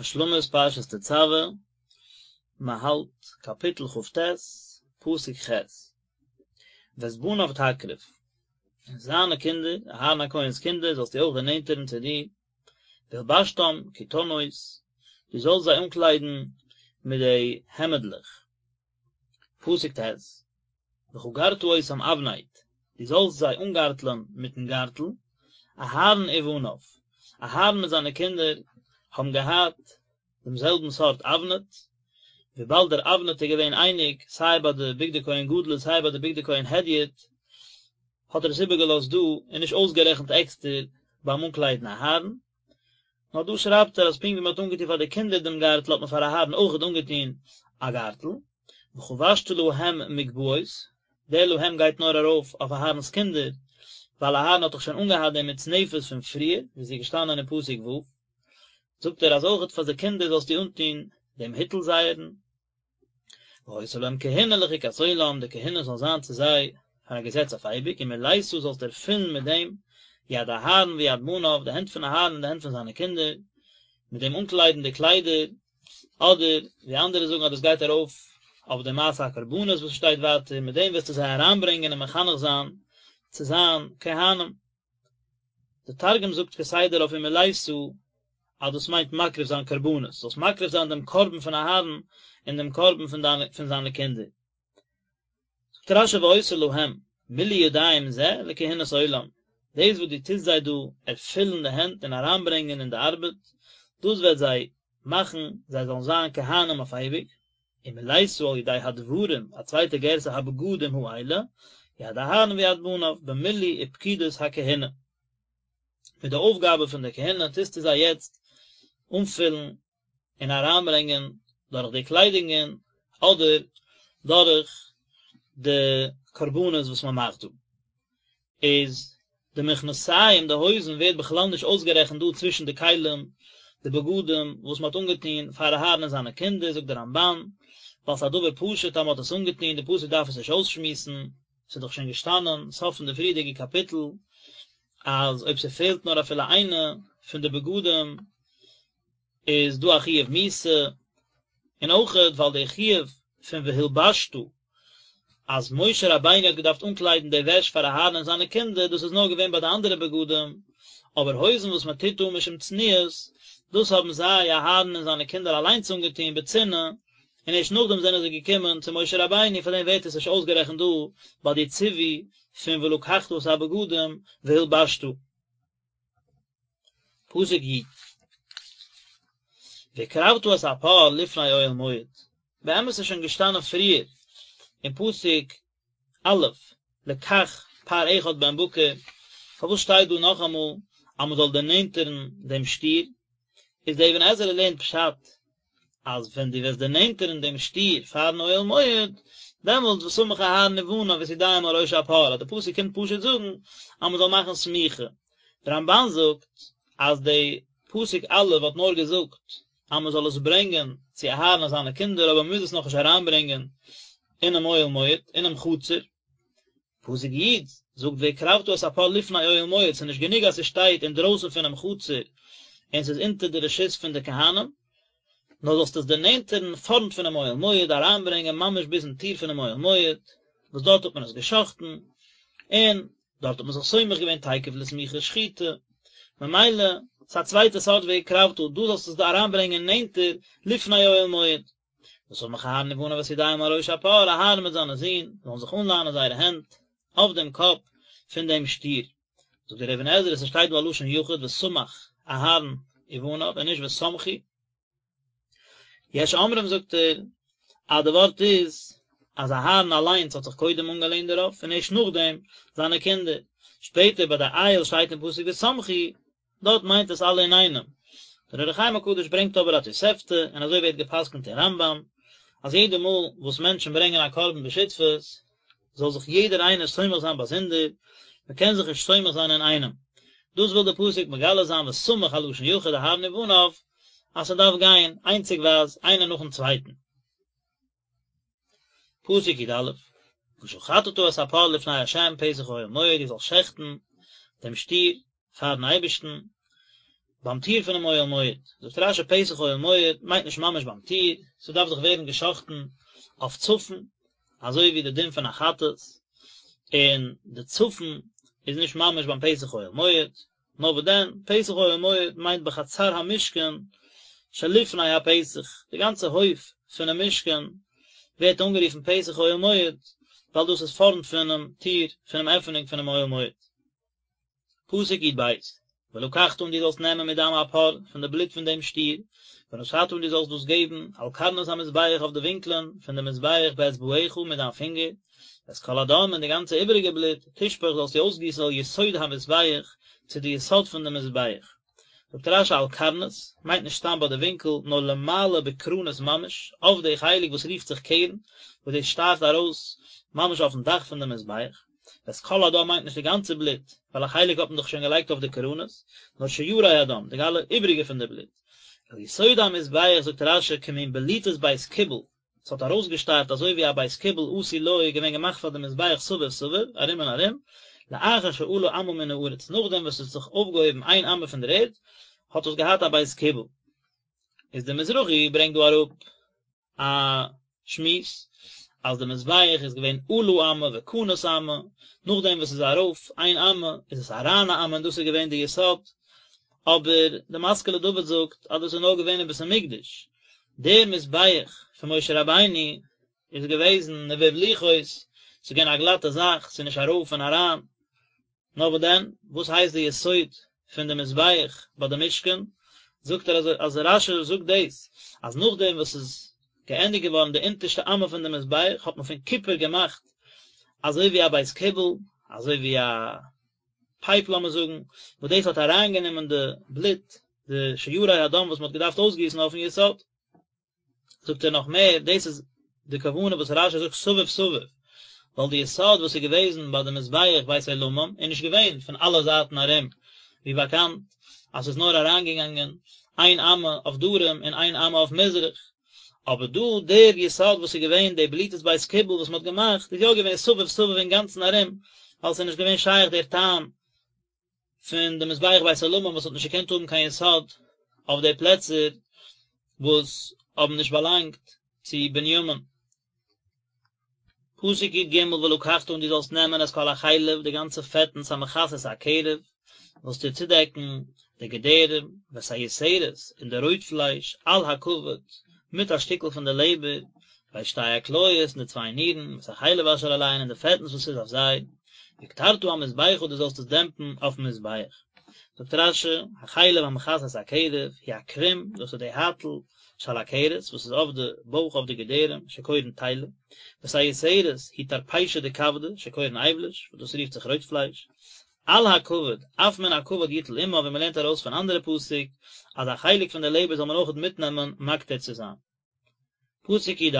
השלמת פרשת תצוה, מען האלט קאפיטל כ"ט, פסוק ח', ואת בניו תקרב, און זיינע קינדער, אהרן הכהן'ס קינדער, זאלסטו אויך דערנענטערן צו דיר, והלבשתם כתנות, דו זאלסט זיי אנקליידן מיט די העמדלעך. פסוק ט', וחגרת אותם אבנט, דו זאלסט זיי אנגארטלען מיטן גארטל, אהרן ובניו, אהרן מיט זיינע קינדער האבן געהאט דעם זעלבן סארט אבנט, וויבאלד דער אבנט איז געווען אייניג סיי ביי די בגדי כהן גדול און סיי ביי די בגדי כהן הדיוט, האט ער עס איבערגעלאזט דא און נישט אויסגערעכנט עקסטער ביים אנקליידן אהרן. נאר דא שרייבט ער אז פונקט ווי מען האט אנגעטון פאר די קינדער דעם גארטל האט מען פאר אהרן אויכעט אנגעטון א גארטל, וחבשת להם מגבעות, דער להם גייט נאר ארויף אויף אהרן'ס קינדער, ווייל אהרן האט דאך שוין אנגעהאט די מצנפת פון פריער, ווי ס'איז געשטאנען אין פסוק ו', זאגט ער אז אויכעט פאר די קינדער זאלסטו אנטון דעם היטל זייערן. והיתה להם כהונה לחוקת עולם, די כהונה זאל זיין צו זיי פאר א געזעץ אויף אייביג, ומלאת זאלסט ערפילן מיט דעם יד אהרן ויד בניו, די הענט פון אהרן און די הענט פון זיינע קינדער, מיט דעם אנקליידן די קליידער, אדער ווי אנדערע זאגן אז דאס גייט ארויף אויף די מעשה הקרבנות וואס שטייט ווייטער, מיט דעם וועסטו זיי אריינברענגען און מחנך זיין צו זיין כהנים. די תרגום זאגט כסדר אויף ומלאת אז דאס מיינט מקריב זיין קרבנות, זאלסט מקריב זיין דעם קרבן פון אהרן און דעם קרבן פון דיינע פון זיינע קינדער. זאגט רש"י והיתה להם מילוי ידיים זה לכהונת עולם, דאס וואס דו טוסט זיי דא ערפילן די הענט און אריינברענגען אין די ארבעט, דאס וועט זיי מאכן זיי זאלן זיין כהנים אויף אייביג, ומלאת על ידי הדברים, א צווייטע גירסא הבגדים האלה, יד אהרן ויד בניו, במילוי ופקידת הכהונה. מיט די אויפגאבע פון די כהונה טוסטו זיי יעצט אנפילן און אריינברענגען דורך די קליידונגען אדער דורך די קרבנות וואס מען מאכט דא. איז די מכנסיים, די הויזן, ווערט בכלל נישט אויסגערעכנט דא צווישן די כלים, די בגדים, וואס מען האט אנגעטון פאר אהרן און זיינע קינדער, זאגט דער רמב"ן, ווייל ס'איז א דבר פשוט אז מען האט עס אנגעטון, די פסוק דארף עס נישט אויסשמועסן, ס'איז דאך שוין געשטאנען, סוף פון די פריערדיגע קאפיטל, אז אויב ס'פעלט נאר אפילו איינע פון די בגדים, איז דא א חיוב מיתה, און אויכעט ווייל די חיוב פון והלבשת אז משה רבינו האט געדארפט אנקליידן די וועש פאר אהרן און זיינע קינדער, דאס איז נאר געווען ביי די אנדערע בגדים, אבער הויזן וואס מען טוט אן משום צניעות, דאס האבן זיי, אהרן און זיינע קינדער, אליינס אנגעטון בצנעה, און ערשט נאכדעם זענען זיי געקומען צו משה רבינו, פארדעם ווערט עס נישט אויסגערעכנט דא ביי די ציווי פון ולקחת את הבגדים והלבשת. פסוק י' והקרבת את הפר לפני אוהל מועד, באמת איז שוין געשטאנען פריער אין פסוק א' לקח פר אחד בן בקר, פארוואס שטייט דא נאכאמאל אז מען זאל דערנענטערן דעם שטיר, איז דער אבן עזרא לערנט פשט אז ווען דו וועסט דערנענטערן דעם שטיר פארן אוהל מועד, דעמאלטס וסמך אהרן ובניו את ידיהם על ראש הפר, אז די פסוק קומט פשוט זאגן אז מען זאל מאכן סמיכה. דער רמב"ן זאגט אז די פסוק א' האט נאר געזאגט אז מען זאל עס ברענגען צו אהרן און זיינע קינדער אבער מען מוז עס נאכנישט אריינברענגען אינעם אוהל מועד, אינעם חצר. פסוק י' זאגט והקרבת את הפר לפני אוהל מועד, ס'איז נישט גענוג אז ס'שטייט אינדרויסן פונעם חצר און ס'איז אונטער די רשות פון די כהנים, נאר זאלסט עס דערנענטערן פארנט פונעם אוהל מועד, אריינברענגען ממש ביזן טיר פונעם אוהל מועד, וואס דארט האט מען עס גע'שחט'ן, און דארט האט מען זיך סומך געווען תיכף לסמיכה שחיטה, ממילא ס'איז א צווייטע סארט והקרבת, דא זאלסטו עס אריינברענגען נענטער לפני אוהל מועד. וסמך אהרן ובניו את ידיהם על ראש הפר, אהרן מיט זיינע זין זאלן זיך אנלאנען זייערע הענט אויף דעם קאפ פון דעם שטיר. זאגט דער אבן עזרא, ס'שטייט דא א לשון יחיד וסמך אהרן ובניו און נישט וסמכו. יש אומרים זאגט ער אז די ווארט איז אז אהרן אליינס האט זיך קודם אנגעלענט דערויף און ערשט נאכדעם זיינע קינדער. שפעטער ביי די איל שטייט אין פסוק וסמכו, דארט מיינט עס אלע אינאיינעם. דער אור החיים הקדוש ברענגט אבער א תוספתא, און אזוי ווערט גע'פסק'נט אין רמב"ם, אז יעדע מאל וואס מענטשן ברענגען א קרבן בשותפות, זאל זיך יעדער איינער סומך זיין באזונדער, מען קען זיך נישט סומך זיין אינאיינעם. דאס וויל דער פסוק מגלה זיין וסמך א לשון יחיד אהרן ובניו, אז ס'דארף גיין איינציגווייז איינער נאכן צווייטן. פסוק י"א, ושחטת את הפר לפני ה' פתח אוהל מועד, דו זאלסט שעכטן דעם שטיר פארן אייבערשטן. ביים טיר פונעם אוהל מועד, זאגט רש"י פתח אוהל מועד מיינט נישט ממש ביים טיר, ס'דארף דאך ווערן גע'שחט'ן אויף צפון, אזוי ווי די דין פון א חטאת, און די צפון איז נישט ממש ביים פתח אוהל מועד, נאר וואס דען, פתח אוהל מועד מיינט בחצר המשכן שלפני הפתח, די גאנצע הויף פונעם משכן ווערט אנגערופן פתח אוהל מועד, ווייל דאס איז פארנט פונעם טיר פונעם עפענונג פונעם אוהל מועד. פסוק י"ב, ולקחת און דו זאלסט נעמען מדם הפר, פון די בלוט פון דעם שטיר, ונתת און דו זאלסט דאס געבן, על קרנות המזבח אויף די ווינקלען פון דעם מזבח באצבעך מיט דיין פינגער, ואת כל הדם און די גאנצע איבעריגע בלוט, תשפוך זאלסטו אויסגיסן אל יסוד המזבח, צו די יסוד פון דעם מזבח. זאגט רש"י על קרנות, מיינט נישט סתם ביי די ווינקל, נאר למעלה בקרנות ממש, אויף די חלק וואס רופט זיך קרן, וואס דאס שטארט ארויס ממש אויפן דאך פון דעם מזבח. ואת כל הדם מיינט נישט די גאנצע בלוט, ווייל א חלק האט מען דאך שוין געלייגט אויף די קרנות, נאר שיירי הדם, די אלע איבריגע פון די בלוט. אל יסוד המזבח זאגט רש"י כמין בליטת בית קיבול, ס'האט ארויסגעשטארט אזוי ווי א בית קיבול עשוי לו איז געווען געמאכט פאר די מזבח סביב סביב, ארום און ארום, לאחר שעלה אמה מן הארץ, נאכדעם וואס עס האט זיך אויפגעהויבן איין אמה פון דער ערד, האט עס געהאט א בית קיבול. איז דער מזרחי ברענגט דא אראפ א שמועס אז די מזבח איז געווען עלה אמה וכנס אמה, נאכדעם וואס ס'איז ארויף איין אמה איז עס אריין א אמה און דאס איז געווען די יסוד, אבער די משכיל לדוד זאגט אז דאס איז נאר געווען אין בית המקדש, דער מזבח פון משה רבינו איז געוועזן נבוב לוחות, ס'איז געווען א גלאטע זאך, ס'איז נישט ארויף און אריין, נאר וואס דען, וואס הייסט די יסוד פון די מזבח ביי די משכן, זאגט ער אז אז רש"י זאגט דאס, אז נאכדעם וואס ס'איז געענדיגט געווארן די אונטערשטע אמה פון די מזבח האט מען פון קופער געמאכט אזוי ווי א בית קיבול, אזוי ווי א פייפ לאמיר זאגן, וואס דאס האט אריינגענומען די בלוט, די שיירי הדם וואס מען האט געדארפט אויסגיסן אויפן יסוד. זאגט ער נאך מער, דאס איז די כוונה וואס רש"י זאגט סביב סביב, ווייל די יסוד וואס איז געוועזן ביי די מזבח בית עולמים איז נישט געווען פון אלע זייטן ארום, ווי באקאנט אז ס'איז נאר אריינגעגאנגען איין אמה אויף דרום און איין אמה אויף מזרח, אבער דא דער יסוד וואס איז געווען די בליטת בית קיבול וואס מ'האט געמאכט איז יא געווען סביב סביב אינגאנצן ארום, ווייל ס'איז נישט געווען שייך דער טעם פון די מזבח בית עולמים וואס האט נישט געקענט האבן קיין יסוד אויף די פלעצער וואס האבן נישט באלאנגט צו בנימין. פסוק י"ג ולקחת און דו זאלסט נעמען את כל החלב די גאנצע פעטנס המכסה את הקרב זאלסטו צודעקן די געדערים ואת היותרת און די רויט פלייש על הכבד מיט א שטיקל פון די לעבער ואת שתי הכליות און די צוויי נירן ואת החלב אשר עליהן און די פעטנס וואס איז אויף זיי והקטרת המזבחה דו זאלסט עס דעמפן אויפן מזבח. זאגט רש"י, החלב המכסה את הקרב, הוא הקרום, דאס איז די הייטל שעל הכרס, וואס איז אויף די בויך אויף די געדערים, שקורין תלה, ואת היותרת, היא טרפישא דכבדא, שקורין אייבליש, וואס דאס רופט זיך רויט פלייש. על הכבד, אף מן הכבד יטול עמה, ווי מען לערנט ארויס פון אנדערע פסוק, אז א חלק פון די לעבער זאל מען אויכעט מיטנעמען מקטיר צו זיין. פסוק י"ד,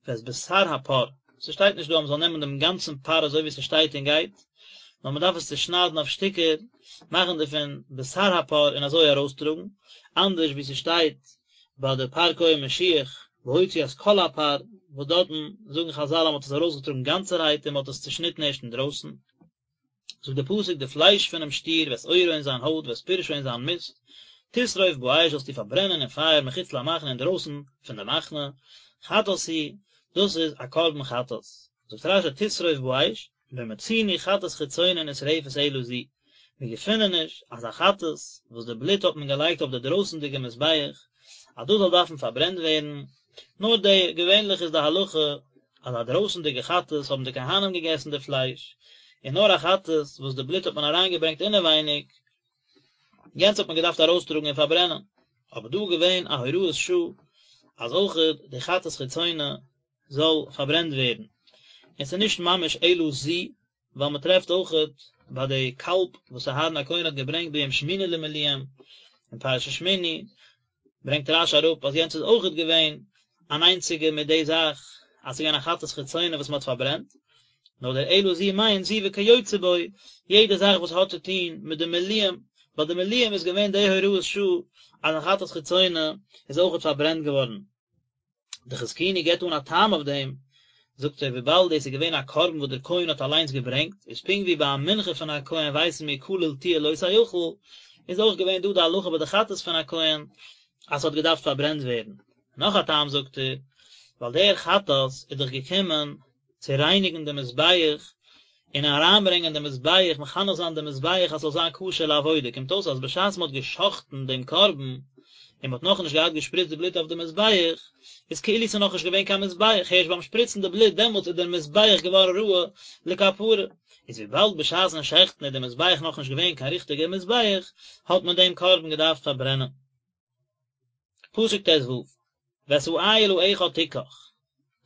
ואת בשר הפר, ס'שטייט נישט דא אז מ'זאל נעמען דעם גאנצן פר אזוי ווי ס'שטייט און גייט, נאר מ'דארף עס צושניידן אויף שטיקער, מאכן דערפון בשר הפר און אזוי ארויסטראגן, אנדערש ווי ס'שטייט ביי די פר כהן משיח, והוציא את כל הפר, וואס דארטן זאגן חזל אז מ'האט עס ארויסגעטראגן גאנצערהייט און מ'האט עס צושניטן ערשט אינדרויסן. זאגט דער פסוק די פלייש פונעם שטיר ואת עורו און זיין הויט ואת פרשו און זיין מיסט, תשרוף באש זאלסטו פארברענען אין פייער מחוץ למחנה אינדרויסן פון די מחנה, חטאת הוא, דאס איז א קרבן חטאת. זאגט רש"י תשרוף באש, לא מצינו חטאת חיצונה נשרפת אלא זו, מיר געפינען נישט אז א חטאת וואס די בלוט האט מען געלייגט אויף די דרויסנדיגע מזבח אז דאס זאל דארפן פארברענט ווערן, נאר די, געווענליך איז די הלכה אז א דרויסנדיגע חטאת האבן די כהנים געגעסן די פלייש, און נאר א חטאת וואס די בלוט האט מען אריינגעברענגט אינעווייניג, יענץ האט מען געדארפט ארויסטראגן און פארברענען, אבער דא איז געווען א הוראת שעה אז אויכעט די חטאת חיצונה זאל פארברענט ווערן, און ס'איז נישט ממש אלא זו, ווייל מען טרעפט אויכעט ביי די קאלב וואס אהרן הכהן האט געברענגט ביום שמיני למילואים אין פרשת שמיני, ברענגט רש"י אראפ אז יענץ איז אויכעט געווען אן איינציגע מיט די זאך אז ס'איז געווען א חטאת חיצונה וואס מען האט פארברענט, נאר דער אלא זו מיינט זו וכיוצא בו, יעדע זאך וואס האט צו טון מיט די מילואים, ביי די מילואים איז געווען די הוראת שעה אז א חטאת חיצונה איז אויכעט פארברענט געווארן. די חזקוני געבט אן א טעם אויף דעם, זאגט ער וויבאלד דאס איז געווען א קרבן וואס דער כהן האט אליינס געברענגט, איז פונקט ווי ביי א מנחה פון א כהן ווייסן מיר כליל תהיה לא תאכל, איז אויך געווען דא די הלכה ביי די חטאת פון א כהן אז ס'האט געדארפט פארברענט ווערן. נאך א טעם זאגט ער, ווייל דער חטאת איז דאך געקומען צו רייניגן די מזבח און אריינברענגען די מזבח, מחנך זיין די מזבח אז ס'זאל זיין כשר לעבודה, קומט אויס אז בשעת מ'האט גע'שחט'ן דעם קרבן און מ'האט נאכנישט געהאט געשפריצט די בלוט אויף די מזבח, איז כאילו ס'איז נאכנישט געווען קיין מזבח, הערשט ביים שפריצן די בלוט דעמאלטס איז דער מזבח געווארן ראוי לכפרה. איז וויבאלד בשעת'ן שעכטן איז דער מזבח נאכנישט געווען קיין ריכטיגער מזבח, האט מען דעם קרבן געדארפט פארברענען. פסוק ט ו, ואת האיל האחד תקח,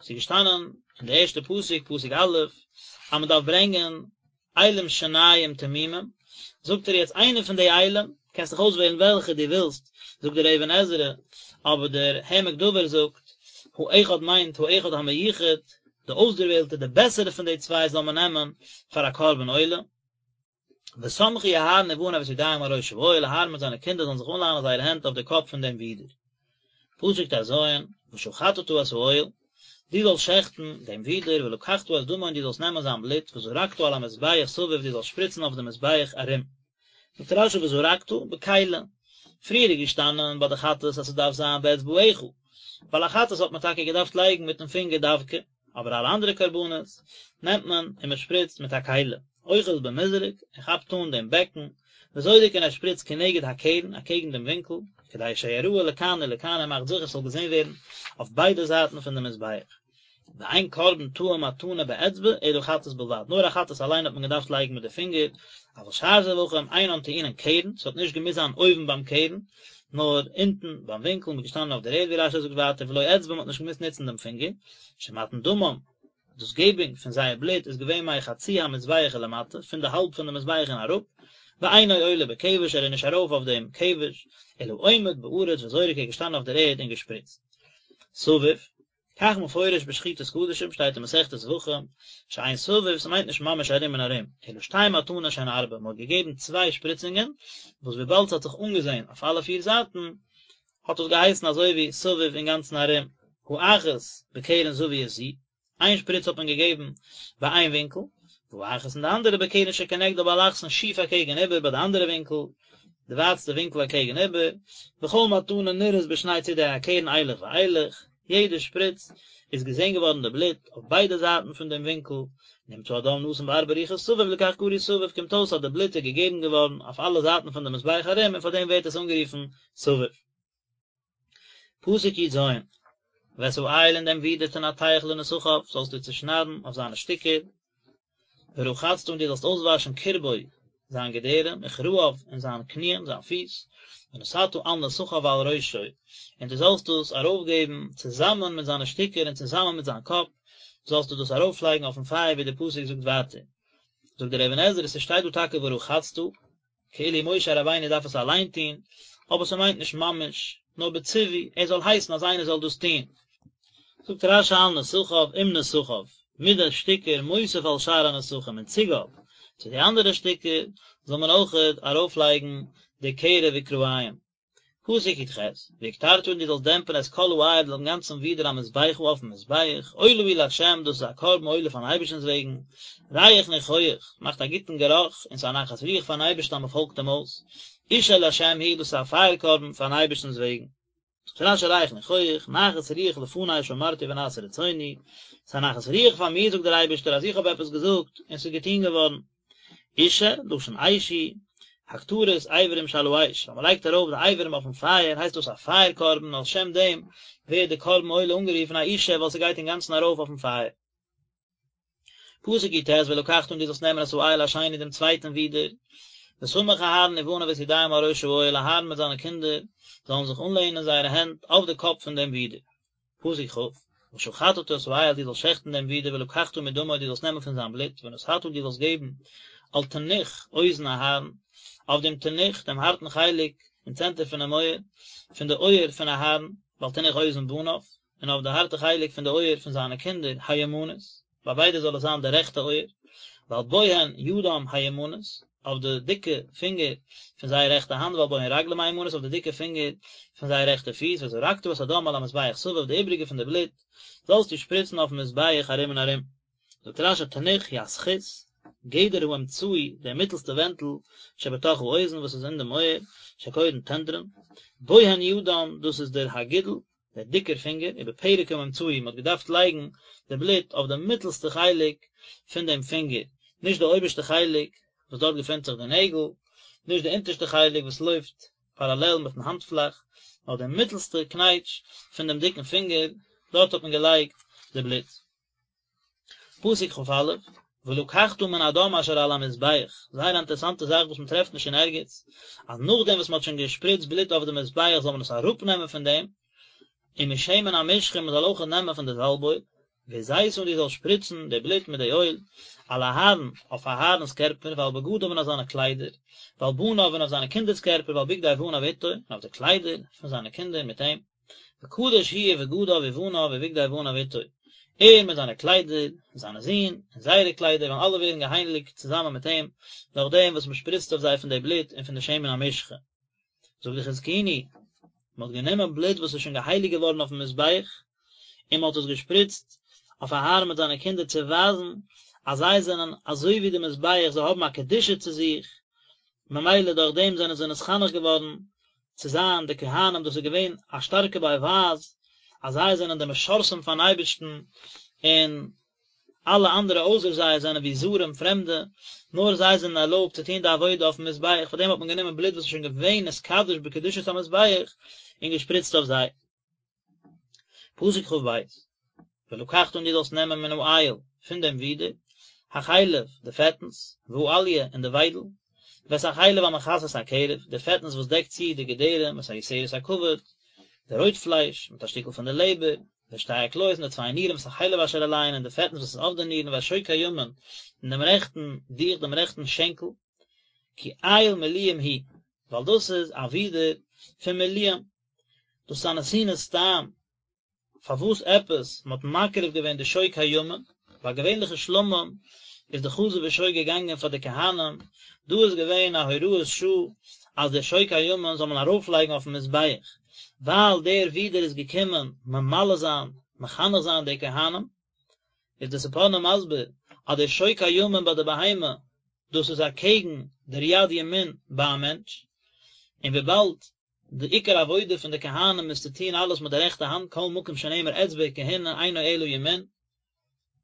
ס'איז געשטאנען אין די ערשטע פסוק, פסוק א', אז מען דארף ברענגען אילים שנים תמימים, זאגט ער יעצט איינע פון די אילים, קענסט דיך אויסוועלן וועלכע דו ווילסט, זאגט דער אבן עזרא, אבער דער העמק דבר זאגט, האחד מיינט האחד המיוחד, די אויסדערוועלטע, די בעסערע פון די צוויי זאל מען נעמען פאר א קרבן עולה. וסמכו אהרן ובניו את ידיהם על ראש האיל, אהרן מיט זיינע קינדער זאלן זיך אנלאנען זייערע הענט אויף די קאפ פון דעם ווידער. פסוק ט ז, ושחטת את האיל, דו זאלסט שעכטן דעם ווידער, ולקחת את דמו און דו זאלסט נעמען זיין בלוט, וזרקת על המזבח סביב, דו זאלסט שפריצן אויף דעם מזבח ארום. זאגט רשי וזרקת, בכלי, פריער איז געשטאנען ביי די חטאת אז ס'דארף זיין באצבעך, ווייל א חטאת האט מען טאקע געדארפט לייגן מיטן פינגער דווקא, אבער אלע אנדערע קרבנות נעמט מען און מען שפריצט מיט א כלי, אוחז במזרק, ער כאפט אן דעם בעקן, וזורק און ער שפריצט כנגד הקרן, אקעגן דעם ווינקל, כדי שיראה לכאן ולכאן ער מאכט זיכער ס'זאל געזען ווערן אויף ביידע זייטן פון די מזבח. ואין קרבן טעון מתנה באצבע אלא חטאת בלבד, נאר א חטאת אליין האט מען געדארפט לייגן מיט די פינגער, אבל שאר זבחים אינן טעונין קרן, ס'האט נישט געמוזט זיין אויבן ביים קרן, נאר אונטן ביים ווינקל, מ'איז געשטאנען אויף דער ערד ווי רשי זאגט ווייטער ולא אצבע מ'האט נישט געמוזט נוצן דעם פינגער, שמתן דמם, דאס געבונג פון זייער בלוט איז געווען מחצי המזבח ולמטה, פון די האלב פון די מזבח און אראפ, ואינו עולה בכבש ער איז נישט ארויף אויף דעם כבש, אלא עומד בארץ וזורק ער איז געשטאנען אויף דער ערד און געשפריצט. סביב, כך מפורש בשחיטת קדשים שטייט אין מסכת זבחים, שאין סביב ס'מיינט נישט ממש ארום און ארום, אלא שתי מתנות שהן ארבע, מ'האט געגעבן צוויי שפריצונגען, וואס וויבאלד ס'האט זיך אנגעזען אויף אלע פיר זייטן, האט עס געהייסן אזוי ווי סביב אינגאנצן ארום, האחת בקרן זווית זו, איין שפריץ האט מען געגעבן ביי איין ווינקל, והאחת און די אנדערע בקרן שכנגדה באלכסון שיף אקעגן איבער ביי די אנדערע ווינקל, די ווייטסטע ווינקל אקעגן איבער, וכל מתנה נראית בשני צידי הקרן אילך ואילך, יעדע שפריץ איז געזען געווארן די בלוט אויף ביידע זייטן פון דעם ווינקל, נמצא הדם נתון בארבע רוחות סביב לכך קרוי סביב, קומט אויס אז די בלוט איז געגעבן געווארן אויף אלע זייטן פון די מזבח ארום און פאר דעם ווערט עס אנגערופן סביב. פסוק י ז, ואת האיל און דעם ווידער תנתח לנסכיו, זאלסטו צעשניידן אויף זיינע שטיקער, ורחצת און דו זאלסט אויסוואשן קרבו, זיין געדערים, וכרעיו, און זיין קניען, זיין פיס, ונתתה על נסכיו ועל ראשו, און דו זאלסט דאס ארויפגעבן צוזאמען מיט זיינע שטיקער און צוזאמען מיט זיין קאפ, זאלסטו דאס ארויפלייגן אויפן פייער ווי דער פסוק זאגט ווייטער. זאגט דער אבן עזרא, ס'שטייט דא טאקע ורחצת, כאילו משה רבינו דארף עס אליין טון, אבער ס'מיינט נישט ממש, נאר בציווי, ער זאל הייסן אז איינער זאל דאס טון. זאגט רשי על נסכיו עם נסכיו, מיט די שטיקער מוסיף על שאר הנסכים אין צוגאב צו די אנדערע שטיקער זאל מען אויכעט ארויפלייגן די קרב וכרעים. פסוק י ח, והקטרת און דו זאלסט דעמפן את כל האיל דעם גאנצן ווידער המזבחה אויפן מזבח, עולה הוא לה' דאס איז א קרבן עולה פארן אייבערשטנ'ס וועגן, ריח ניחוח, מאכט א גוטן גערוך, און ס'איז א נחת רוח פארן אייבערשטן אז מ'פאלגט אים אויס, אשה לה' הוא דאס איז א פייער קרבן פארן אייבערשטנ'ס וועגן. זאגט רשי ריח ניחוח, נחת רוח לפני שאמרתי ונעשה רצוני, ס'איז א נחת רוח פאר מיר זאגט דער אייבערשטער אז איך האב עפעס געזאגט און ס'איז געטון געווארן. אשה, לשון אש הוא, הקטרת אברים שעל האש, ווען מ'לייגט ארויף די אברים אויפן פייער הייסט דאס א פייער קרבן, על שם דעם ווערט די קרבן עולה אנגערופן א אשה ווייל ס'גייט אינגאנצן ארויף אויפן פייער. פסוק י ט, ולקחת און דו זאלסט נעמען את האיל השני דעם צווייטן ווידער, וסמך אהרן ובניו את ידיהם על ראש האיל, אהרן מיט זיינע קינדער זאלן זיך אנלענען זייערע הענט אויף די קאפ פון דעם ווידער. פסוק כ, ושחטת את האיל דו זאלסט שעכטן דעם ווידער ולקחת מדמו דו זאלסט נעמען פון זיין בלוט ונתת דו זאלסט געבן על תנוך אוזן אהרן, אויף דעם תנוך, דעם הארטן חלק אין צענטער פונעם אויער, פון די אויער פון אהרן, ועל תנוך אוזן בניו, און אויף די הארטע חלק פון די אויער פון זיינע קינדער, הימנית, ביי ביידע זאל עס זיין די רעכטע אויער, ועל בוהן ידם הימנית, אויף די דיקע פינגער פון זייער רעכטע האנט, ועל בוהן רגלם הימנית, אויף די דיקע פינגער פון זייער רעכטע פיס, וזרקת את הדם על המזבח סביב, די איבריגע פון די בלוט זאלסטו שפריצן אויפן מזבח ארום און ארום. זאגט רשי תנוך הוא הזכות. גדר האמצעי, דער מיטלסטע ווענטל, שבתוך האוזן וואס איז אין דעם אויער, שקורין טנדרין, בוהן ידם, דאס איז דער הגודל, דער דיקער פינגער, ובפרק האמצעי, מען האט געדארפט לייגן די בלוט אויף די מיטלסטע חלק פון דעם פינגער, נישט די אויבערשטע חלק וואס דארט געפינט זיך די נעגל, נישט די אונטערשטע חלק וואס לויפט פאראלעל מיטן האנטפלאך, נאר די מיטלסטע קנייטש פון דעם דיקן פינגער, דארט האט מען געלייגט די בלוט. פסוק כ"א, ולקחת מן הדם אשר על המזבח, זייער א אינטערעסאנטע זאך וואס מען טרעפט נישט אין ערגעץ, אז נאכדעם וואס מען האט שוין געשפריצט בלוט אויף די מזבח זאל מען עס אראפנעמען פון דעם, ומשמן המשחה מען זאל אויך נעמען פון די זאלב-אויל, והזית און דו זאלסט שפריצן די בלוט מיט די אויל, על אהרן, אויף אהרן'ס קערפער, ועל בגדיו און אויף זיינע קליידער, ועל בניו און אויף זיינע קינדער'ס קערפער, ועל בגדי בניו איתו, און אויף די קליידער פון זיינע קינדער מיט אים. וקדוש הוא ובגדיו ובניו ובגדי בניו איתו, ער מיט זיינע קליידער, און זיינע זין, און זייערע קליידער וועלן אלע ווערן געהייליגט צוזאמען מיט אים, דורך דעם וואס מען שפריצט אויף זיי פון די בלוט און פון די שמן המשחה. זאגט די חזקוני, מען האט גענומען בלוט וואס איז שוין געהייליגט געווארן אויפן מזבח, און מען האט עס געשפריצט אויף אהרן מיט זיינע קינדער צו ווייזן אז זיי זענען אזוי ווי די מזבח, זיי האבן א קדושה צו זיך, ממילא דורך דעם זענען זיי נתחנך געווארן צו זיין די כהנים, דאס איז געווען א שטארקע באווייז אז זיי זענען די משרתים פארן אייבערשטן, און אלע אנדערע אויסער זיי זענען ווי זרים, פרעמדע, נאר זיי זענען ערלויבט צו טון די עבודה אויפן מזבח, פאר דעם האט מען גענומען בלוט וואס איז שוין געווען נתקדש בקדושת המזבח און געשפריצט אויף זיי. פסוק כ"ב, ולקחת און דו זאלסט נעמען מן האיל, פון דעם ווידער, החלב, די פעטנס, והאליה, און די וויידל, ואת החלב המכסה את הקרב, די פעטנס וואס דעקט צו די געדערים, ואת היותרת הכבד, די רויט פלייש, מיט א שטיקל פון די לעבער, ואת שתי הכליות און די צוויי נירן, ואת החלב אשר עליהן, און די פעטנס וואס איז אויף די נירן, ואת שוק הימין, און דעם רעכטן דיך, דעם רעכטן שענקל, כי איל מלואים הוא, ווייל דאס איז א ווידער פון מלואים, דאס איז א נתינת טעם, פארוואס עפעס מען האט מקריב געווען די שוק הימין, ביי געווענליכע שלמים איז די חזה ושוק געגאנגען פאר די כהנים, דא איז געווען א הוראת שעה אז דער שוק הימין זאל מען ארויפלייגן אויפן מזבח, ווייל דער ווידער איז געקומען ממלא זיין, מחנך זיין די כהנים, איז די ספורנו מסביר אז דער שוק הימין ביי די בהמה דאס איז אקעגן דער יד ימין ביי א מענטש, און וויבאלד די עיקר עבודה פון די כהנים איז צו טון אלעס מיט די רעכטע האנט כל מקום שנאמר אצבע וכהונה אינו אלא ימין,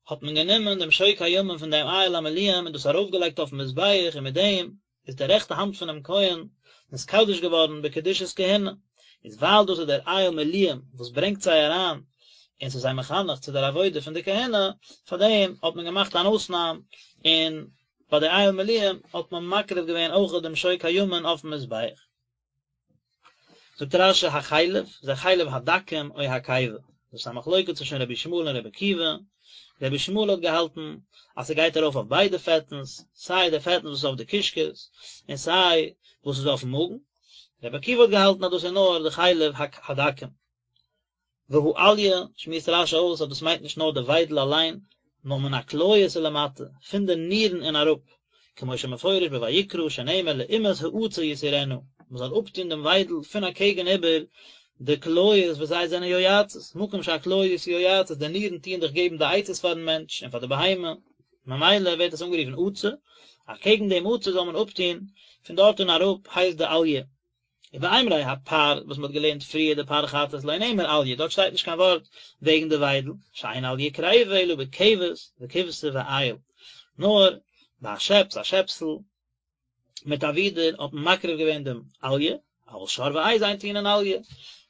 האט מען גענומען דעם שוק הימין פון דעם איל המלואים און דאס ארויפגעלייגט אויפן מזבח און מיט דעם איז די רעכטע האנט פונעם כהן נתקדש געווארן בקדושת כהונה, איז ווייל דאס איז דער איל מלואים וואס ברענגט זיי אריין און ס'איז זיי מחנך צו דער עבודה פון די כהונה, פאר דעם האט מען געמאכט אן אויסנאם און ביי די איל מלואים האט מען מקריב געווען אויך דעם שוק הימין אויפן מזבח. זאגט רש"י החלב, זה חלב הדקים או הקיבה, דאס איז א מחלוקת צווישן רבי ישמעאל און רבי עקיבא, רבי ישמעאל האט געהאלטן אז ס'גייט ארויף אויף ביידע פעטנס, סיי די פעטנס וואס איז אויף די קישקעס, און סיי וואס איז אויפן מאגן, רבי עקיבא האט געהאלטן אז דאס איז נאר די חלב הדקים. והאליה, שמועסט רש"י אויס אז דאס מיינט נישט נאר די וויידל אליין, נאר מן הכליות ולמטה, פון די נירן און אראפ, כמו שמפורש בויקרא שנאמר לעומת העצה יסירנה, מען זאל אפטון דעם וויידל פון אקעגן איבער די כליות וואס זיי זענען יועצות, מקום שהכליות יועצות, די נירן טוען דאך געבן די עצות פארן מענטש און פאר די בהמה, ממילא ווערט עס אנגערופן עצה, אקעגן דעם עצה זאל מען אפטון, פון דארט און אראפ הייסט די אליה. ובאימורי הפר וואס מ'האט געלערנט פריער די פר חטאת לא נאמר אליה דארט שטייט נישט קיין ווארט וועגן די וויידל שאין אליה קריבה אלא בכבש וכבשה ואיל נאר ביי א שעפס א שעפסל מיט א ווידער האט מען מקריב געווען דעם אליה אבל שור ועז אין טעונין אליה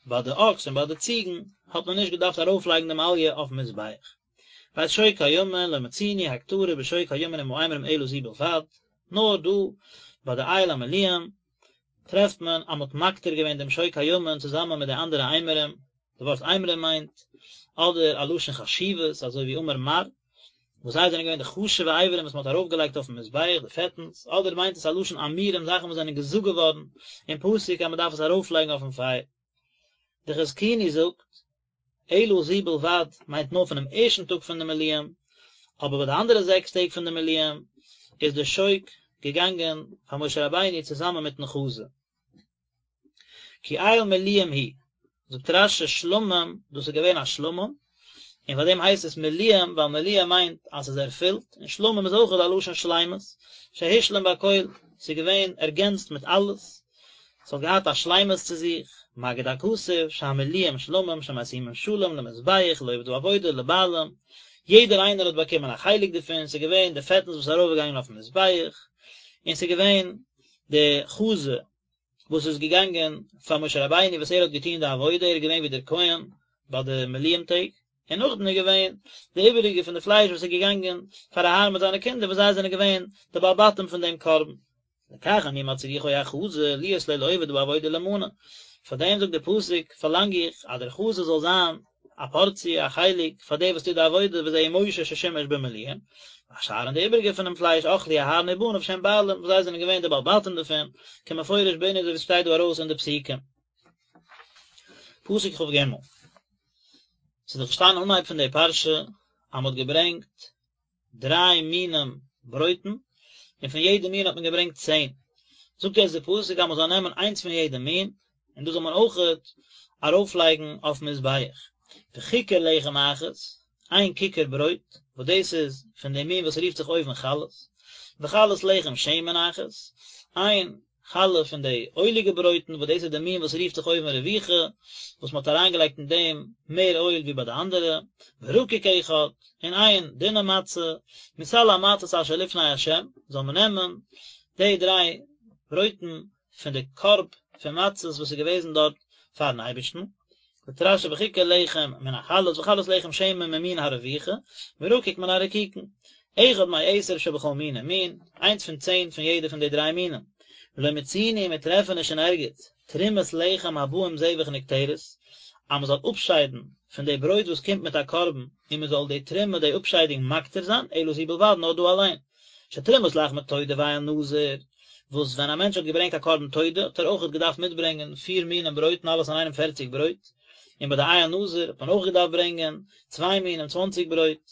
ביי די אקס און ביי די ציגן האט מען נישט געדארפט ארויפלייגן דעם אליה אויפן מזבח. ואת שוק הימין לא מצינו הקטרה בשוק הימין עם האימורים אלא זו בלבד נאר דא ביי די איל המלואים טרעפט מען אז מ'האט מקטיר געווען דעם שוק הימין צוזאמען מיט די אנדערע אימורים, די ווארט אימורים מיינט אדער א לשון חשיבות אזוי ווי אמר מר, וואס זיי זענען געווען די חשוב'ע אברים וואס מ'האט ארויפגעלייגט אויפן מזבח, די פעטנס, אדער מיינט עס א לשון אמירים זאכן וואס זענען געזאגט געווארן אין פסוק אז מ'דארף עס ארויפלייגן אויפן פייער. די חזקוני זאגט, אלא זו בלבד מיינט נאר פונעם ערשטן טאג פון די מילואים, אבער ביי די אנדערע זעקס טעג פון די מילואים איז די שוק געגאנגען פאר משה רבינו צוזאמען מיטן חזה. כי איל מלואים הוא, זאגט רש"י שלמים, דאס איז געווען א שלמים, און פאר דעם הייסט עס מלואים, ווייל מלואה מיינט אז ס'איז ערפילט, און שלמים איז אויכעט א לשון שלימות, שהושלם בכל, ס'איז געווען ערגענצט מיט אלעס, ס'האט געהאט א שלימות צו זיך, מגיד הכתוב, שהמלואים שלמים שמשימים שלום למזבח לעובד העבודה לבעלים, יעדער איינער האט באקומען א חלק דערפון, ס'איז געווען די פעטנס וואס איז ארויפגעגאנגען אויפן מזבח, און ס'איז געווען די חזה וואס איז געגאנגען פאר משה רבינו וואס ער האט געטון די עבודה, ער איז געווען ווי דער כהן ביי די מילואים טעג, און נאכדעם איז געווען די איבעריגע פון די פלייש וואס איז געגאנגען פאר אהרן מיט זיינע קינדער וואס זיי זענען געווען די בעלי בתים פון דעם קרבן. לכך אני מצריכו החזה להיות לו לעובד העבודה למנה, פאר דעם זאגט דער פסוק פארלאנג איך אז דער חזה זאל זיין א פארציע, א חלק, פאר דער וואס טוט די עבודה, וזהו משה ששימש במילואים, והשאר און די איבעריגע פונעם פלייש אכלו אהרן ובניו שהם בעלים, וואס זיי זענען געווען די בעלי בתים דערפון, כמפורש בענין אזוי ווי עס שטייט דא ארויס אין די פסוקים. פסוק כג. ס'איז דאך געשטאנען אנהייב פון די פרשה אז מ'האט געברענגט דריי מינים ברויטן, און פון יעדע מין האט מען געברענגט צען. זאגט יעצט די פסוק אז מען זאל נעמען איינס פון יעדע מין, און דאס זאל מען אויכעט ארויפלייגן אויפן מזבח. וככר לחם אחת, איין כיכר ברויט, וואס דאס איז פון די מין וואס רופט זיך אויבן חלות, וחלת לחם שמן אחת, איין חלה פון די אויליגע ברויטן וואס דאס איז די מין וואס רופט זיך אויבן רבוכה, וואס מען האט אריינגעלייגט אין דעם מער אויל ווי ביי די אנדערע, ורקיק אחד, און איין דינע מצה, מסל המצות אשר לפני ה', זאל מען נעמען די דריי ברויטן פון די קארב פון מצות וואס איז געוועזן דארט פארן אייבערשטן, זאגט רשי וככר לחם מן החלות וחלת לחם שמן ממין הרבוכה, ורקיק מן הרקיקין. אחד מעשר שבכל מין ומין, איינס פון צען פון יעדע פון די דריי מינים. ולא מצינו מיר טרעפן נישט אין ערגעץ, תרומת לחם הבא עם זבח נקטרת, אז מען זאל אפשיידן פון די ברויט וואס קומט מיט א קרבן, און מען זאל די תרומה די אפשיידונג מקטיר זיין, אלא זו בלבד נאר דא אליין. שתרומת לחמי תודה ואיל נזיר, וואס ווען א מענטש האט געברענגט א קרבן תודה האט ער אויכעט געדארפט מיטברענגען פיר מינים ברויטן אלעס אינאיינעם פערציג ברויט, און ביי די איל נזיר האט מען אויך געדארפט ברענגען צוויי מינים צוואנציג ברויט,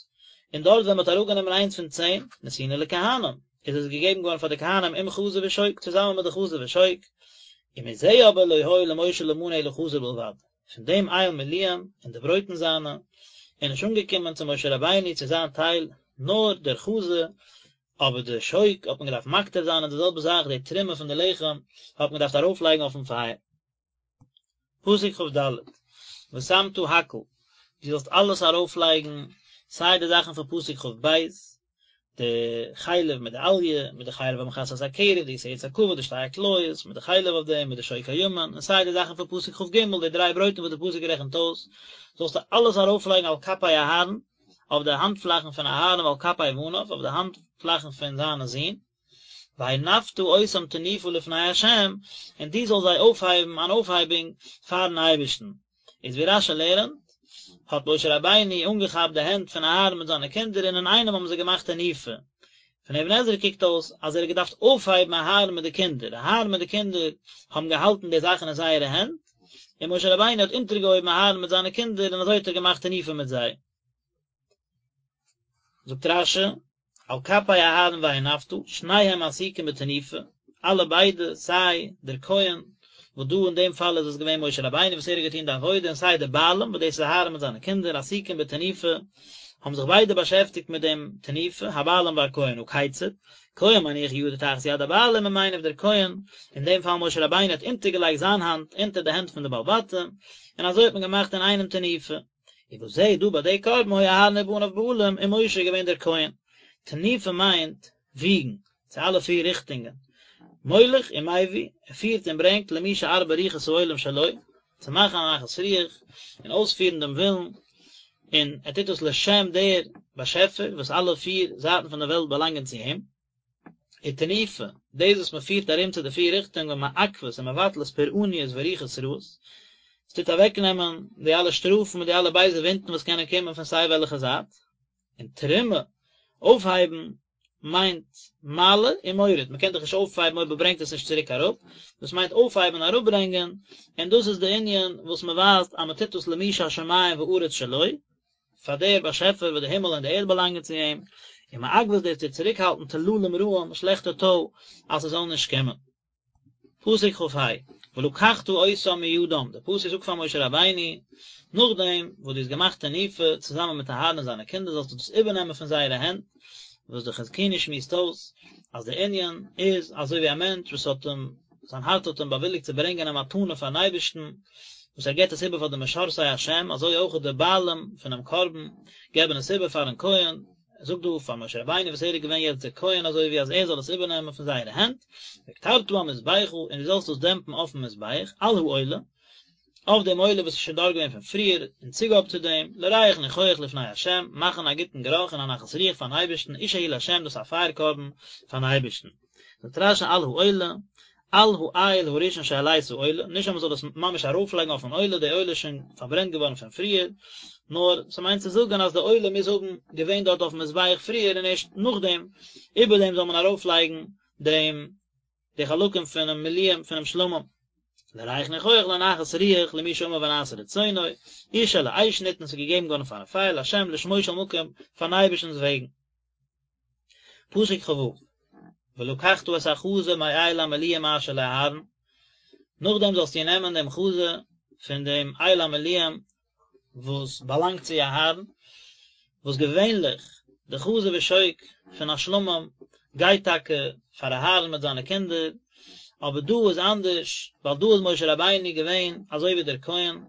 און דארט ווען מען האט אראפגענומען איינס פון צען, נתונה לכהנים, איז עס געגעבן געווארן פאר די כהנים עם חזה ושוק, צוזאמען מיט די חזה ושוק, ומזה אבער לא היה למשה למנה אלא חזה בלבד. פון דעם איל מילואים און די ברויטן זיינע, איז נישט אנגעקומען צו משה רבינו צו זיין טייל, נאר דער חזה, אבער די שוק האט מען געדארפט מקטיר זיין און די זעלבע זאך די תרומה פון די לחם האט מען געדארפט ארויפלייגן אויפן פייער. פסוק כד, ושמת הכל, דו זאלסט אלעס ארויפלייגן, סיי די זאכן פון פסוק כב, די חלב מיט די אליה, מיט די חלב המכסה את הקרב, די יותרת הכבד, די שתי הכליות, מיט די חלב אויף דעם, מיט די שוק הימין, און סיי די זאכן פון פסוק כג, די דריי ברויטן וואס די פסוק רעכנט אויס, זאלסטו אלעס ארויפלייגן על כפי אהרן, אויף די האנטפלאכן פון אהרן ועל כפי בניו, אויף די האנטפלאכן פון זיינע זין, והנפת אותם תנופה לפני ה', און דו זאלסט זיי אויפהייבן אן אויפהייבונג פארן אייבערשטן. איז ווי רשי לערנט, האט משה רבינו אנגעכאפט די הענט פון אהרן מיט זיינע קינדער און אינאיינעם האבן זיי געמאכט תנופה. פון אבן עזרא קוקט אויס אז ער האט געדארפט אויפהייבן אהרן מיט די קינדער, אהרן מיט די קינדער האבן געהאלטן די זאכן אין זייערע הענט, און משה רבינו האט אונטערגעהויבן אהרן מיט זיינע קינדער און אזוי האט ער געמאכט תנופה מיט זיי. זאגט רשי, על כפי אהרן והנפת, שניהם עסוקים בתנופה, אלע ביידע, סיי דער כהן, וואס דא אין דעם פאל איז עס געווען משה רבינו וואס ער האט געטון די עבודה, און סיי די בעלים, וואס דאס איז אהרן מיט זיינע קינדער, עסוקים בתנופה, האבן זיך ביידע באשעפטיגט מיט דעם תנופה, הבעלים והכהן, הא כיצד, כהן מניח ידו תחת יד הבעלים ומניף דער כהן, אין דעם פאל משה רבינו האט אונטערגעלייגט זיין האנט אונטער די הענט פון די בעלי בתים, און אזוי האט מען געמאכט אינאיינעם תנופה. ובזה דא ביי די קרבן היו אהרן ובניו בעלים און משה איז געווען דער כהן. תנופה מיינט וויגן, צו אלע פיר ריכטונגען. מוליך ומביא, ער פירט און ברענגט למי שארבע רוחות העולם שלו, צו מאכן א נחת רוח און אויספירן דעם ווילן, און ער טוט דאס לשם דער באשעפער וואס אלע פיר זייטן פון דער וועלט באלאנגען צו אים. ותנופה, דאס וואס מען פירט ארום צו די פיר ריכטונגען מעכבת ומבטלת פורעניות ורוחות רעות, עס טוט אוועקנעמען די אלע שטראפן מיט די אלע בייזע ווינטן וואס קענען קומען פון סיי וועלכע זייט, און תרומה, אויפהייבן, מיינט מעלה ומוריד, מען קען דאך נישט אויפהייבן אויב מען ברענגט עס נישט צוריק אראפ, דאס מיינט אויפהייבן און אראפברענגען, און דאס איז די ענין וואס מען ווייזט אז מען טוט דאס למי שהשמים וארץ שלו, פאר דער באשעפער וואס די הימל און די ערד באלאנגען צו אים, ומעכבת דאס טוט צוריקהאלטן טללים רעים, שלעכטע טוי, אז ס'זאל נישט קומען. פסוק כ"ה, ולקחת אותם מידם, דער פסוק זאגט פאר משה רבינו, נאכדעם וואס דו האסט געמאכט תנופה צוזאמען מיט אהרן און זיינע קינדער זאלסטו דאס איבערנעמען פון זייערע הענט, וואס דער חזקוני שמועסט אויס אז דער ענין איז אזוי ווי א מענטש וואס האט אים, זיין הארץ האט אים באוויליגט צו ברענגען א מתנה פארן אייבערשטן, וואס ער געבט עס איבער פאר די משרתי השם, אזוי אויך די בעלים פונעם קרבן געבן עס איבער פארן כהן, ער זאגט דא פאר משה רבינו וואס ער איז געווען יעצט דער כהן אזוי ווי אז ער זאל עס איבערנעמען פון זייערע הענט, והקטרת המזבחה, און דו זאלסט דאס דעמפן אויפן מזבח, על העולה, אויף דעם עולה וואס איז שוין דארט געווען פון פריער, אין צוגאב צו דעם, לריח ניחוח לפני ה', מאכן א גוטן גערוך און א נחת רוח פארן אייבערשטן, אשה היא לה', דאס איז א פייער קרבן פארן אייבערשטן. זאגט רש"י על העולה, על האיל הראשון שהעלית עולה, נישט אז מ'זאל עס ממש ארויפלייגן אויפן עולה, די עולה איז שוין פארברענט געווארן פון פריער, נאר ס'מיינט צו זאגן אז די עולה מוז האבן געווען דארט אויפן מזבח פריער און ערשט נאכדעם, איבער דעם זאל מען ארויפלייגן דעם די חלקים פונעם מילואים פונעם שלמים. לריח ניחוח לנחת רוח למי שאמר ונעשה רצונו, אשה לאש ניתנה ס'איז געגעבן געווארן פארן פייער לה' לשמו של מקום פארן אייבערשטנ'ס וועגן. פסוק כ"ו, ולקחת את החזה מאיל המלואים אשר לאהרן, נאכדעם זאלסטו נעמען דעם חזה פון דעם איל המלואים וואס באלאנגט צו אהרן, וואס געווענליך די חזה ושוק פון א שלמים גייט טאקע פאר אהרן מיט זיינע קינדער, אבער דא איז אנדערש, ווייל דא איז משה רבינו געווען אזוי ווי דער כהן,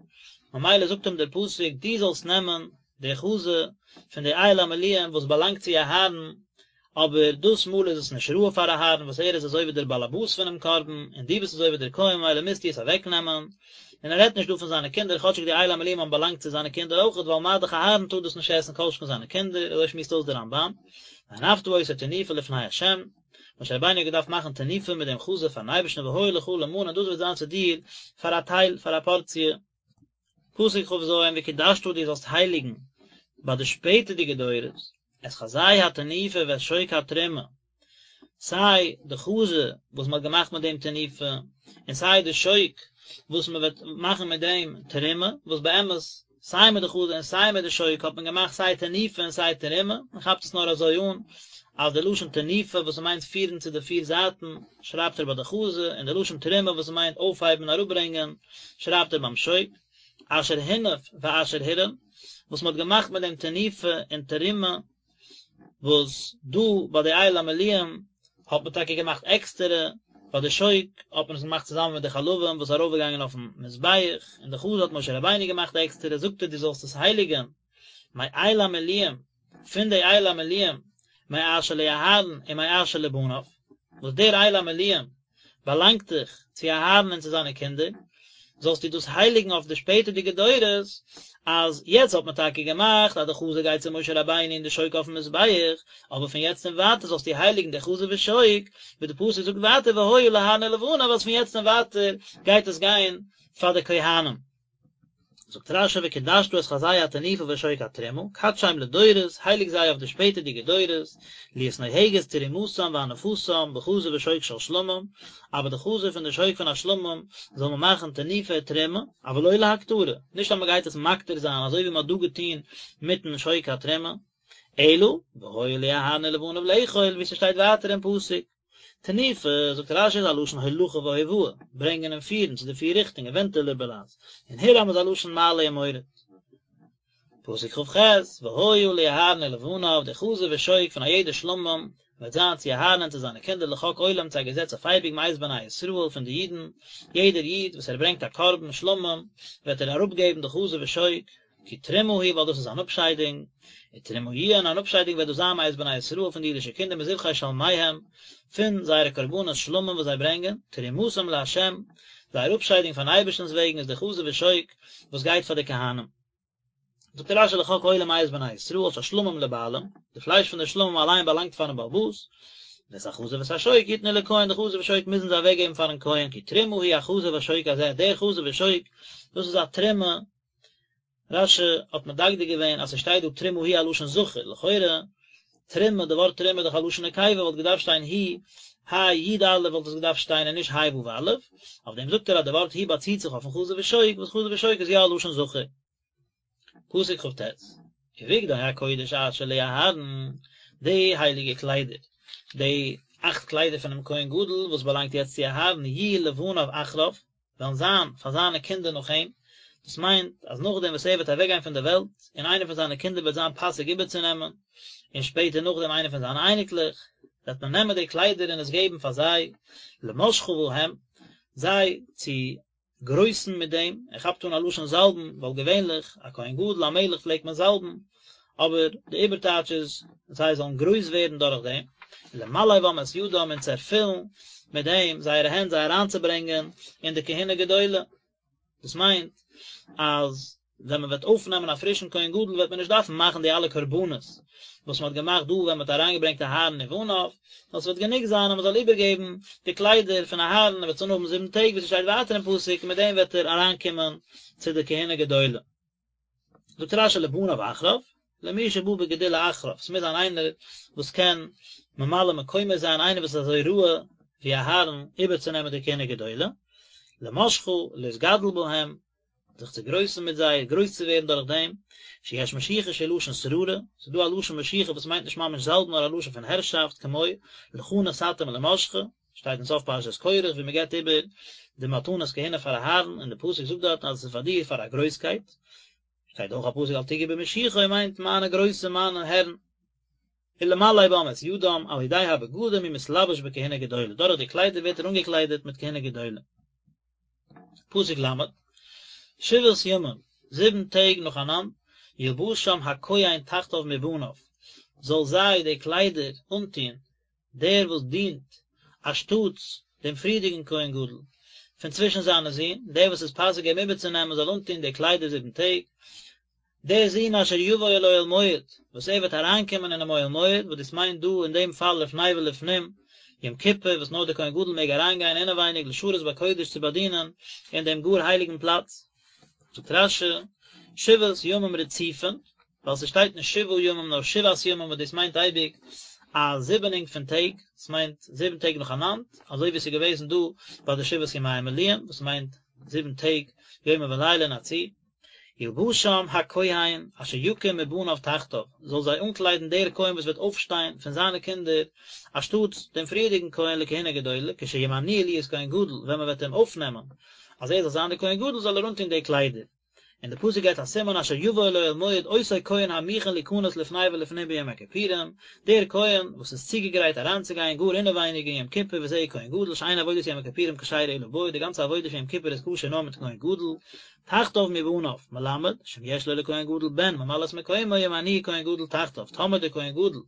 ממילא זאגט אים דער פסוק דו זאלסט נעמען די חזה פון די איל המלואים וואס באלאנגט צו אהרן, אבער דאס מאל איז עס נישט ראוי פאר אהרן וואס ער איז אזוי ווי דער באלעבאס פונעם קרבן, און דו ביסט אזוי ווי דער כהן ממילא מוזטו עס אוועקנעמען, און ער רעדט נישט דא פון זיינע קינדער כאטשיג די איל המלואים האבן באלאנגט צו זיינע קינדער אויכעט ווייל מה דאך אהרן טאר דאס נישט עסן כל שכן זיינע קינדער, אזוי שמועסט אויס דער רמב"ן, והנפת אותו תנופה לפני ה', משה רבינו האט געדארפט מאכן תנופה מיט דעם חזה פארן אייבערשטן והיה לך למנה און דאס וועט זיין צו דיר פאר א טייל, פאר א פארציע. פסוק כ"ז, וקדשת דו זאלסט הייליגן ביי די שפעטערדיגע דורות, את חזה התנופה ואת שוק התרומה, סיי די חזה וואס מען האט געמאכט מיט דעם תנופה, און סיי די שוק וואס מען וועט מאכן מיט דעם תרומה, וואס באמת סיי מיט די חזה און סיי מיט די שוק האט מען געמאכט סיי תנופה און סיי תרומה, מען כאפט עס נאר אזוי אן אז די לשון תנופה וואס מיינט פירן צו די פיר זייטן שרייבט ער ביי די חזה, און די לשון תרומה וואס מיינט אויפהייבן און אראפברענגען שרייבט ער ביים שוק, אשר הונף ואשר הורם, וואס מען האט געמאכט מיט דעם תנופה און תרומה, וואס דא ביי די איל המלואים האט מען טאקע געמאכט עקסטערע, ביי די שוק האט מען עס געמאכט צוזאמען מיט די חלבים וואס איז ארויפגעגאנגען אויפן מזבח, און די חזה האט משה רבינו געמאכט עקסטערע, זאגט ער דו זאלסט עס הייליגען מאיל המלואים, פון די איל המלואים, מאשר לאהרן ומאשר לבניו, וואס דער איל המלואים באלאנגט דאך צו אהרן און צו זיינע קינדער, זאלסטו דאס הייליגן אויף די שפעטערדיגע דורות, אז יעצט האט מען טאקע געמאכט אז די חזה גייט צו משה רבינו און די שוק אויפן מזבח, אבער פון יעצט און ווייטער זאלסטו הייליגן די חזה ושוק, ווי די פסוק זאגט ווייטער והיה לאהרן ולבניו אז פון יעצט און ווייטער גייט עס גיין פאר די כהנים. זאגט רש"י וקדשת את חזה התנופה ושוק התרומה, קדשם לדורות, הייליג זיי אויף די שפעטערדיגע דורות, להיות נוהגת תרומתם והנפתם בחזה ושוק של שלמים, אבער די חזה פון די שוק פון א שלמים זאל מען מאכן תנופה ותרומה, אבל לא להקטרה, נישט אז מען גייט עס מקטיר זיין אזוי ווי מען האט דא געטון מיטן שוק התרומה, אלא והיה לאהרן ולבניו לאכול, ווי ס'שטייט ווייטער אין פסוק. תנופה, זאגט רש"י איז א לשון הולכה והובאה, ברענגען און פירן צו די פיר ריכטונגען, ווענטילער בלע"ז, און הורם איז א לשון מעלה ומוריד. פסוק כ"ח, והיה לאהרן ולבניו, די חזה ושוק פון א יעדע שלמים, וועט זיין צו אהרן און צו זיינע קינדער לחוק עולם צו א געזעץ אויף אייביג מאת בני ישראל פון די אידן, יעדער איד וואס ער ברענגט א קרבן שלמים, וועט ער אראפגעבן די חזה ושוק, כי תרומה היא ווייל דאס איז אן אפשיידונג, ותרומה יהיה און אן אפשיידונג וועט דאס זיין מאת בני ישראל פון די אידישע קינדער מזבחי שלמיהם, פון זייערע קרבנות שלמים וואס זיי ברענגען, תרומתם לה', זייער אפשיידונג פארן אייבערשטנ'ס וועגן איז די חזה ושוק וואס גייט פאר די כהנים. זאגט רש"י לחוק עולם מאת בני ישראל שהשלמים לבעלים, די פלייש פון די שלמים אליין באלאנגט פארן בעל הבית, ואת החזה ואת השוק יתנו לכהן, די חזה ושוק מוזן זיי אוועקגעבן פארן כהן, כי תרומה היא החזה והשוק הזה, דער חזה ושוק, דאס איז א תרומה רש"י האט מדקדק געווען אז ס'שטייט דא תרומה היא א לשון זכר, לכאורה תרומה, די ווארט תרומה איז דאך א לשון נקבה, וואלט געדארפט שטיין היא, ה' י' א' וואלט עס געדארפט שטיין און נישט ה' ו' א', אויף דעם זאגט ער אז די ווארט היא באציט זיך אויפן חזה ושוק, וואס חזה ושוק איז יא א לשון זכר. פסוק כ"ט, ובגדי הקודש אשר לאהרן, די הייליגע קליידער, די. אכט קליידער פונעם כהן גדול וואס באלאנגט יעצט צו אהרן יהיו לבניו אחריו, וועלן זיין פאר זיינע קינדער נאך אים, דאס מיינט אז נאכדעם וואס ער וועט אוועקגיין פון דער וועלט, און איינער פון זיינע קינדער וועט זיין פאסיג איבערצונעמען, און שפעטער נאכדעם איינער פון זיינע אייניקלעך, וועט מען נעמען די קליידער און עס געבן פאר זיי, למשחה בהם, זיי צו גרויסן מיט דעם, ער כאפט אן א לשון זאלבן, ווייל געווענליך א כהן גדול א מלך פלעגט מען זאלבן, אבער די איבערטייטש איז זיי זאלן גרויס ווערן דורך דעם, למלא בם את ידם און צו ערפילן מיט דעם זייערע הענט זיי אריינצוברענגען אין די כהונה גדולה, דאס מיינט אז ווען מען וועט אויפנעמען א פרישן כהן גדול וועט מען נישט דארפן מאכן די אלע קרבנות וואס מען האט געמאכט דא ווען מען האט אריינגעברענגט אהרן ובניו, נאר ס'וועט גענוג זיין אז מען זאל איבערגעבן די קליידער פון אהרן, ער וועט עס אנהאבן זיבן טעג ווי ס'שטייט ווייטער אין פסוק, און מיט דעם וועט ער אריינקומען צו די כהונה גדולה. זאגט רש"י לבניו אחריו, למי שבא בגדולה אחריו, ס'מוז זיין איינער וואס קען ממלא מקומו זיין, איינער וואס איז אזוי ראוי ווי אהרן איבערצונעמען די כהונה גדולה, למשחה, להתגדל בהם, זיך צו גרויסן מיט זיי, גרויס צו ווערן דורך דעם, שיש משיחה שהיא לשון שררה, ס'איז דא א לשון משיחה וואס מיינט נישט ממש זאלבן נאר א לשון פון הערשאפט, כמו, לך נתתים למשחה, שטייט אין סוף פרשת קרח ווי מען געבט איבער די מתנות כהונה פאר אהרן און די פסוק זאגט דארטן אז עס איז פאר דיר פאר א גרויסקייט, שטייט אויך א פסוק אל תגעו במשיחי מיינט מיינע גרויסע מיינע הערן. ולמלא בם את ידם על ידי הבגדים הוא מתלבש בכהונה גדולה, דורך די קליידער ווערט ער אנגעקליידעט מיט כהונה גדולה. פסוק ל', שבעת ימים, זיבן טעג נאכאנאנד, ילבשם הכהן תחתיו מבניו, זאל זיי די קליידער אנטוהן דער וואס דינט אנשטאטס דעם פריערדיגן כהן גדול פון צווישן זיינע זין, דער וואס איז פאסיג אים איבערצונעמען זאל אנטון די קליידער זיבן טעג, דער זון אשר יבוא אל אוהל מועד, וואס ער וועט אריינקומען אינעם אוהל מועד, וואס דאס מיינט דא אין דעם פאל לפני ולפנים, יום כיפור, וואס נאר דער כהן גדול מעג אריינגיין אינעווייניג לשרת בקודש צו באדינען אין דעם גאר הייליגן פלאץ. זאגט רש"י, שבעת ימים רצופין, ווייל ס'שטייט נישט שבעה ימים נאר שבעת ימים וואס דאס מיינט אייביג א זיבענונג פון טעג, ס'מיינט זיבן טעג נאכאנאנד, אזוי ווי ס'איז געוועזן דא ביי די שבעת ימי המילואים וואס מיינט זיבן טעג יומם ולילה אין א צי. ילבשם הכהן אשר יקום מבניו תחתיו, זאל זיי אנקליידן דער כהן וואס וועט אויפשטיין פון זיינע קינדער אנשטאטס דעם פריערדיגן כהן לכהונה גדולה, כשימנוהו להיות כהן גדול, ווען מען וועט אים אויפנעמען אז ער זאל זיין דער כהן גדול זאל ער אנטון די קליידער. און די פסוק געבט א סימן אשר יבוא אל אוהל מועד אותו כהן המוכן ליכנס לפני ולפנים ביום הכיפורים, דער כהן וואס איז צוגעגרייט אריינצוגיין גאר אינעווייניג אין יום כיפור וזהו כהן גדול שאין עבודת יום הכיפורים כשרה אלא בו, די גאנצע עבודה פון יום כיפור איז כשר נאר מיט כהן גדול, תחתיו מבניו, מלמד, שאם יש לו לכהן גדול בן ממלא את מקומו ימנוהו כהן גדול תחתיו, טאמער דער כהן גדול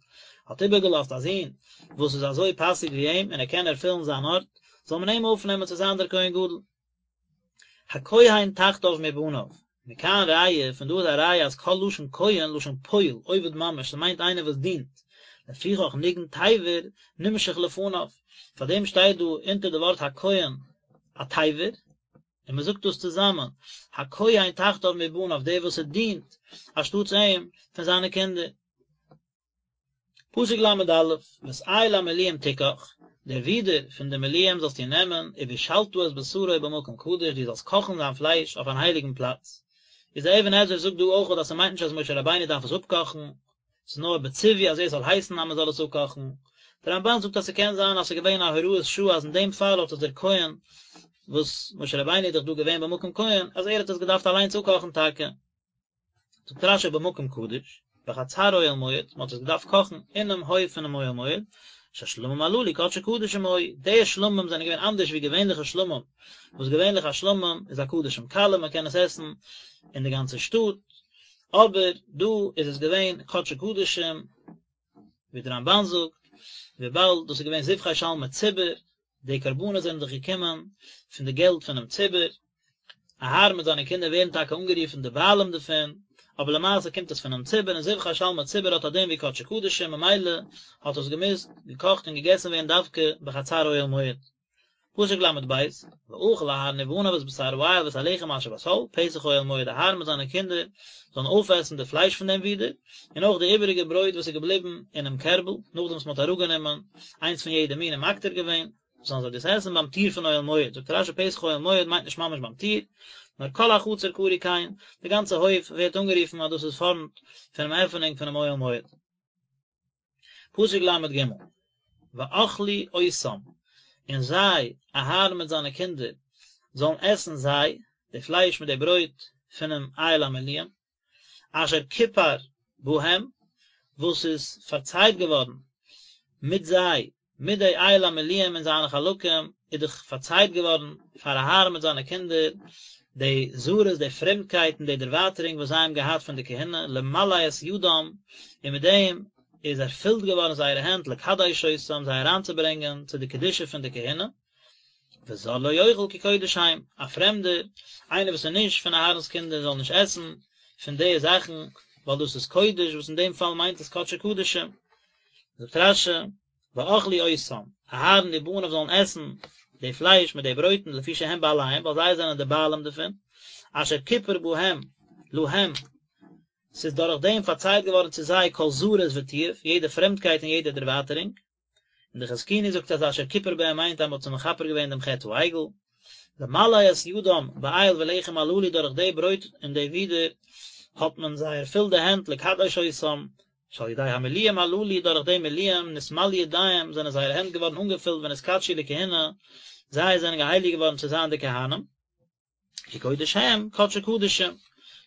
האט איבערגעלאזט א זון וואס איז אזוי פאסיג ווי אים און ער קען ערפילן זיין ארט, זאל מען אים אויפנעמען צו זיין דער כהן גדול. הכהן תחתיו מבניו, מכאן ראיה, פון דא איז א ראיה אז כל לשון כהן לשון פועל, עובד ממש, ס'מיינט איינער וואס דינט, לפיכך ניגון תיבר נמשך לפניו, פאר דעם שטייט דא אונטער די ווארט הכהן א תיבר, און מען זאגט דאס צוזאמען, הכהן תחתיו מבניו, דער וואס ער דינט אנשטאטס אים פון זיינע קינדער. פסוק ל"א, ואת איל המלואים תקח, דער ווידער פון די מלואים זאלסטו נעמען, ובשלת את בשרו במקום קדוש, דו זאלסט קאכן זיין פלייש אויף אן הייליגן פלאץ. איז דער אבן עזרא זאגט דא אויך אז ס'מיינט נישט אז משה רבינו דארף עס אפקאכן, ס'איז נאר בציווי אז ער זאל הייסן אז מ'זאל עס אפקאכן. דער רמב"ן זאגט אז ס'קען זיין אז ס'איז געווען א הוראת שעה אז אין דעם פאל האט עס דער כהן, וואס משה רבינו איז דאך דא געווען במקום כהן, אז ער האט עס געדארפט אליינס אפקאכן טאקע. זאגט רש"י במקום קדוש, בחצר אוהל מועד, מען האט עס געדארפט קאכן אינעם הויף פונעם אוהל מועד, שהשלמים הללו קדשי קדשים היו, די שלמים זענען געווען אנדערש ווי געווענליכע שלמים, וואס געווענליך א שלמים איז א קדשים קלים מען קען עס עסן אין די גאנצע שטאט, אבער דא איז עס געווען קדשי קדשים, ווי דער רמב"ן זאגט, וויבאלד דאס איז געווען זבחי שלמי ציבור, די קרבנות זענען דאך געקומען פון די געלט פונעם ציבור, אהרן מיט זיינע קינדער ווערן טאקע אנגערופן די בעלים דערפון, אבער למעשה קומט עס פונעם ציבור, און זבחי שלמי ציבור האט א דין ווי קדשי קדשים, ממילא האט עס געמוזט געקאכט און געגעסן ווערן דווקא בחצר אוהל מועד. פסוק ל"ב, ואכל אהרן ובניו את בשר האיל ואת הלחם אשר בסל, פתח אוהל מועד אהרן מיט זיינע קינדער זאלן אויפעסן די פלייש פון דעם ווידער, און אויך די איבעריגע ברויט וואס איז געבליבן אינעם קערבל, נאכדעם וואס מען האט אראפגענומען איינס פון יעדע מין און מקטיר געווען, זאלן זיי דאס עסן ביים טיר פון אוהל מועד, זאגט רש"י פתח אוהל מועד מיינט נישט ממש ביים טיר, נאר כל החצר קרוי כן, די גאנצע הויף ווערט אנגערופן אז דאס איז פארנט פונעם עפענונג פונעם אוהל מועד. פסוק ל"ג. ואכלו אותם, און זיי, אהרן מיט זיינע קינדער, זאלן עסן זיי, די פלייש מיט די ברויט פונעם איל המילואים, אשר כופר בהם, וואס איז פארצייט געווארן מיט זיי, מיט די איל המילואים און זיינע חלקים, איז דאך פארצייט געווארן פאר אהרן מיט זיינע קינדער די זרות, די פרעמדקייט און די דערווייטערונג וואס זיי האבן געהאט פון די כהונה, למלא את ידם, און מיט דעם איז ערפילט געווארן זייערע הענט לקדש אותם, זיי אריינצוברענגען צו די קדושה פון די כהונה. וזר לא יאכל כי קודש הם, א פרעמדער, איינער וואס איז נישט פון אהרן'ס קינדער זאל נישט עסן פון די זאכן, ווייל דאס איז קודש, וואס אין דעם פאל מיינט עס קדשי קדשים. זאגט רש"י, ואכלו אותם, אהרן ובניו זאלן עסן די פלייש מיט די ברויטן לפי שהם בעליהם, ווייל זיי זענען די בעלים דערפון, אשר כיפר בהם, להם, ס'איז דורך דעם פארצייט געווארן צו זיי כל זרות ותיעוב, יעדע פרעמדקייט און יעדע דערווייטערונג. און די חזקוני זאגט אז אשר כיפר בהם מיינט אז מען האט זיי מכפר געווען דעם חטא העגל, למלא את ידם באיל ולחם הללו דורך די ברויט און די ווידער האט מען זיי ערפילט די הענט לקדש אותם, שעל ידי המילואים הללו דורך די מילואים נתמלאו ידיהם זענען זייערע הענט געווארן אנגעפילט ונתקדשו לכהונה, זיי זענען געהייליגט געווארן צו זיין די כהנים. כי קודש הם, קדשי קדשים.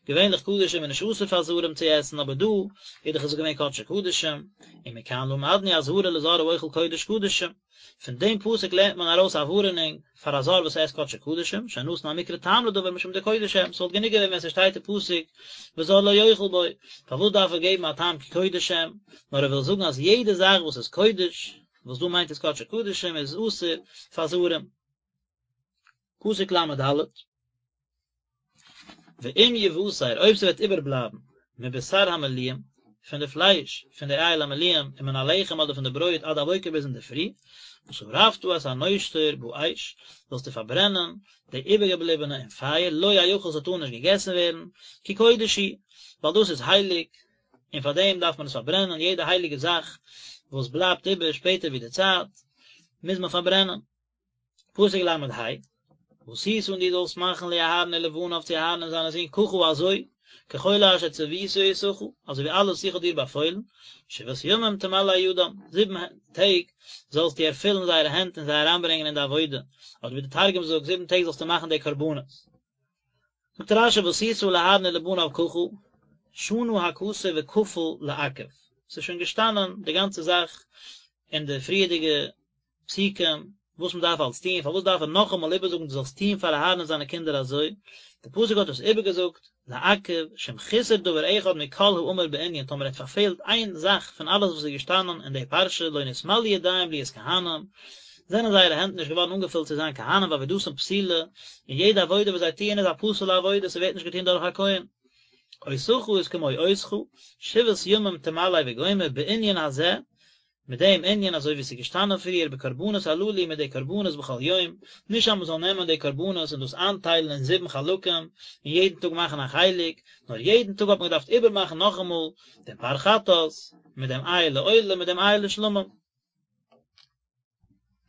געווענליך קדשים איז נישט אסור פאר זרים צו עסן, אבער דא איז דאך עס געווען קדשי קדשים, ומכאן למדנו אזהרה לזר האוכל קודש קדשים. פון דעם פסוק לערנט מען ארויס א ווארענונג פאר א זר וואס עסט קדשי קדשים, שנתן המקרא טעם לדבר משום דקודש הם, ס'וואלט גענוג געווען ווען ס'שטייט אין פסוק וזר לא יאכל בו, פארוואס דארף ער געבן א טעם כי קודש הם, נאר ער וויל זאגן אז יעדע זאך וואס איז קודש, וואס דא מיינט עס קדשי קדשים, איז אסור פאר זרים. פסוק ל"ד, ואם יותר אויב ס'וועט איבערבלייבן מבשר המילואים, פון די פלייש פון די איל המילואים ומן הלחם אדער פון די ברויט עד הבוקר ביז אינדערפרי, ושרפת את הנותר באש, זאלסטו פארברענען די איבערגעבליבענע אין פייער, לא יאכל ס'טאר נישט געגעסן ווערן, כי קודש הוא, ווייל דאס איז הייליג, און פאר דעם דארף מען עס פארברענען, יעדע הייליגע זאך וואס בלייבט איבער שפעטער ווי די צייט, מוז מען פארברענען. פסוק ל"ה, ועשית און דו זאלסט מאכן לאהרן ולבניו צו אהרן און זיינע זין ככה אזוי, ככל אשר צויתי אותך, אזוי ווי אלעס איך האב דיר באפוילן, שבעת ימים תמלא ידם, זיבן טעג זאלסטו ערפילן זייערע הענט און זיי אריינברענגען אין די עבודה, אדער ווי די תרגום זאגט, זיבן טעג זאלסטו מאכן די קרבנות. זאגט רש"י ועשית לאהרן ולבניו ככה, שנה הכתוב וכפל לעכב, ס'איז שוין געשטאנען די גאנצע זאך אין די פריערדיגע פסוקים, וואס מען דארף אלס טון, פארוואס דארף ער נאכאמאל איבערזאגן דו זאלסט טון פאר אהרן און זיינע קינדער אזוי, די פסוק האט עס איבערגעזאגט, לעכב, שאם חיסר דבר אחד מכל האמור בענין, טאמער ער האט פארפעלט איין זאך פון אלעס וואס איז געשטאנען אין די פרשה, לא נתמלאו ידיהם להיות כהנים, זענען זייערע הענט נישט געווארן אנגעפילט צו זיין כהנים ועבודתן פסולה, און יעדע עבודה וואס זיי טוען איז א פסול'ע עבודה, ס'ווערט נישט געטון דורך א כהן. אותך איז כמו אותך, שבעת ימים תמלא וגומר, בענין הזה, מיט דעם ענין אזוי ווי עס איז געשטאנען פריער בקרבנות הללו מיט די קרבנות בכל יום, נישט אז מען זאל נעמען די קרבנות און דאס איינטיילן אין זיבן חלקים און יעדן טאג מאכן א חלק, נאר יעדן טאג האט מען געדארפט איבערמאכן נאכאמאל דעם פר חטאת, מיט דעם איל לעולה מיט דעם איל לשלמים.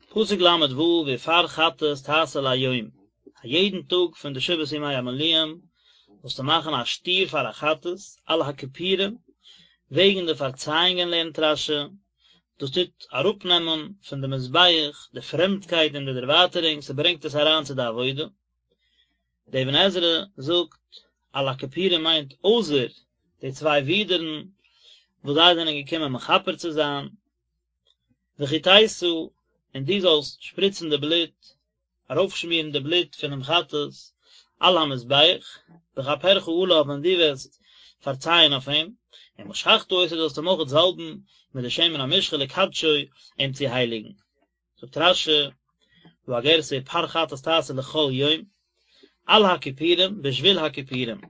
פסוק ל"ו ופר חטאת תעשה ליום, א יעדן טאג פון די שבעת ימי המילואים זאלסטו מאכן א שטיר פאר א חטאת על הכפורים, וועגן די פארצייאונגען לערנט רש"י, דאס טוט אראפנעמען פון די מזבח די פרעמדקייט און די דערווייטערונג, ס'ברענגט עס אריין צו די עבודה. דער אבן עזרא זאגט, על הכפורים מיינט אויסער די צוויי ווידערן וואס זיי זענען געקומען מכפר צו זיין, וחטאת, און דו זאלסט שפריצן די בלוט, ארויפשמירן די בלוט פונעם חטאת על המזבח, בכפרך עליו ווען דו וועסט פארצייען אויף אים, ומשחת אותו זאלסט אים אויך זאלבן מיט די שמן המשחה לקדשו, אים צו הייליגן. זאגט רש"י, דא א גירסא ופר חטאת תעשה לכל יום, על הכפורים, בשביל הכפורים.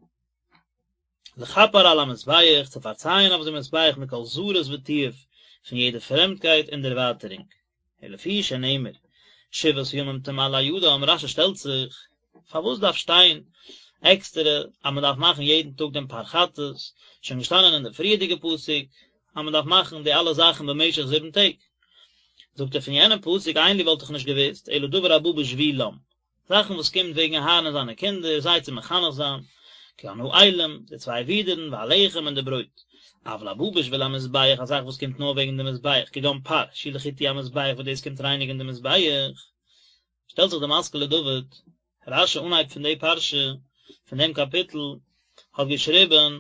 לכפר על המזבח, צו פארצייען אויף דעם מזבח מכל זרות ותיעוב, פון יעדע פרעמדקייט און דערווייטערונג. ולפי שנאמר, שבעת ימים תמלא ידם, רש"י שטעלט זיך, פארוואס דארף שטיין עקסטערע אז מען דארף מאכן יעדן טאג דעם פר חטאת, שוין געשטאנען אין די פריערדיגע פסוק אז מען דארף מאכן די אלע זאכן במשך זיבן טעג. זאגט ער פון יענעם פסוק אין לי וואלט איך נישט געוואוסט, אלא דבר הבא בשבילם, זאכן וואס קומט וועגן אהרן און זיינע קינדער, זיי צו מחנך זיין, כגון האילים, די צוויי ווידערן, והלחם און די ברויט. אבל הבא בשביל המזבח, א זאך וואס קומט נאר וועגן די מזבח, כגון פר, שהוא לחיטוי המזבח וואס דאס קומט רייניגן די מזבח. שטעלט זיך די משכיל לדוד, רש"י אנהייב פון די פרשה, פון דעם קאפיטל, האט געשריבן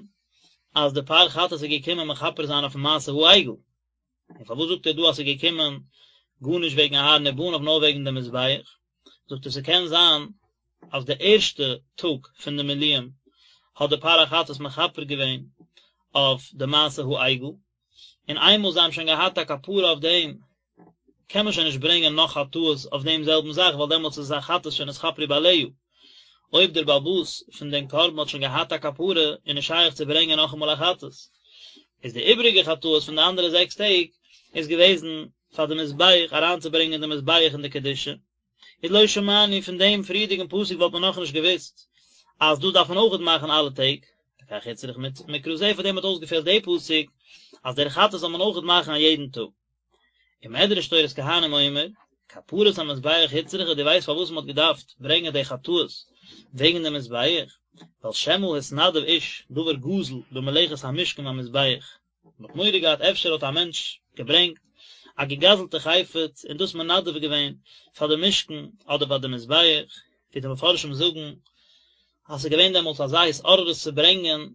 אז די פר חטאת איז געקומען מכפר זיין אויפן מעשה העגל. און פארוואס זאגט ער דא אז ס'איז געקומען גארנישט וועגן אהרן ובניו נאר וועגן די מזבח? זאגט ער ס'קען זיין אז די ערשטע טאג פון די מילואים האט די פר החטאת מכפר געווען אויף די מעשה העגל, און איינמאל זיי האבן שוין געהאט א כפרה אויף דעם קען מען שוין נישט ברענגען נאך חטאות אויף דעם זעלבן זאך ווייל דעמאלטס איז עס א חטאת שנתכפרו בעליה. אויב דער בעל הבית פון דעם קרבן האט שוין געהאט א כפרה איז נישט שייך צו ברענגען נאכאמאל א חטאת. איז די איבריגע חטאות פון די אנדערע זעקס טעג איז געוועזן פאר די מזבח אריינצוברענגען די מזבח אין די קדושה. איז לא שמענו פון דעם פריערדיגן פסוק וואלט מען נאכנישט געוואוסט אז דאס דארף מען אויכעט מאכן אלע טעג, לכך הוצרך מקרא זה פאר דעם האט אויסגעפעלט די פסוק אז דער חטאת זאל מען אויכעט מאכן א יעדן טאג. ומדרש תורת כהנים אומר, כפרת המזבח הוצרכה, דו ווייסט פארוואס מען האט געדארפט ברענגען די חטאות וועגן די מזבח? ווייל שמא התנדב איש דבר גזול במלאכת המשכן והמזבח, מען האט מורא געהאט אפשר האט א מענטש געברענגט א געגזלטע חפץ און דאס מנדב געווען פאר די משכן אדער פאר די מזבח, ווי די מפרשים זאגן אז ס'איז געווען דעמאלטס אזא התעוררות צו ברענגען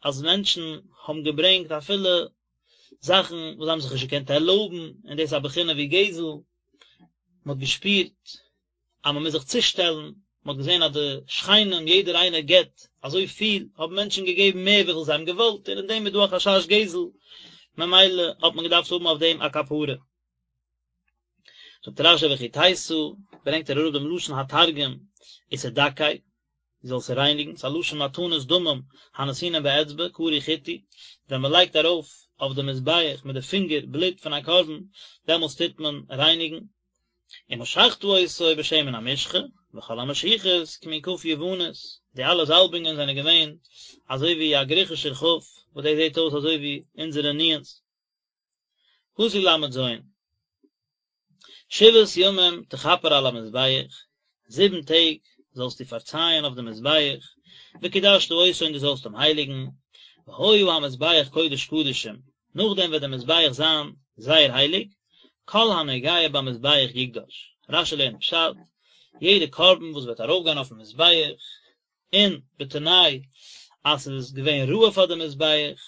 אז מענטשן האבן געברענגט אפילו זאכן וואס זיי האבן זיך נישט געקענט ערלויבן, און דאס איז א בחינה ווי גזל, מען האט געשפירט אז מען מוז זיך צושטעלן, מען האט געזען אז די שכנים יעדער איינער געבט אזוי פיל, האבן מענטשן געגעבן מער וויפיל זיי האבן געוואלט, און אין דעם איז דא א חשש גזל, ממילא האט מען געדארפט האבן אויף דעם א כפרה. זאגט רש"י וחטאת, ברענגט ער אראפ דעם לשון התרגום ותדכי, דו זאלסט רייניגן, ס'איז א לשון מתנות דמים הנתונים באצבע, קרוי חיטוי, ווען מען לייגט ארויף אויף די מזבח מיט די פינגער בלוט פון א קרבן, דעמאלטס טוט מען רייניגן. ומשחת אותו בשמן המשחה, וכל המשיחות כמין כף יוונית, די אלע זאלבונגען זענען געווען אזוי ווי א גריכישער כף, וואס דאס זעט אויס אזוי ווי אונזערע נו"ן'ס. פסוק ל"ז, שבעת ימים תכפר על המזבח, זיבן טעג זאלסטו פארצייען אויף דעם מזבח, וקדשת אותו און דו זאלסט אים הייליגן, והיה המזבח קודש קדשים, נאכדעם וועט דער מזבח זיין זייער הייליג, כל הנוגע במזבח יקדש, רש"י לערנט פשט, יעדע קרבן וואס וועט ארויפגיין אויפן מזבח, און בתנאי אז ס'איז געווען ראוי פאר די מזבח,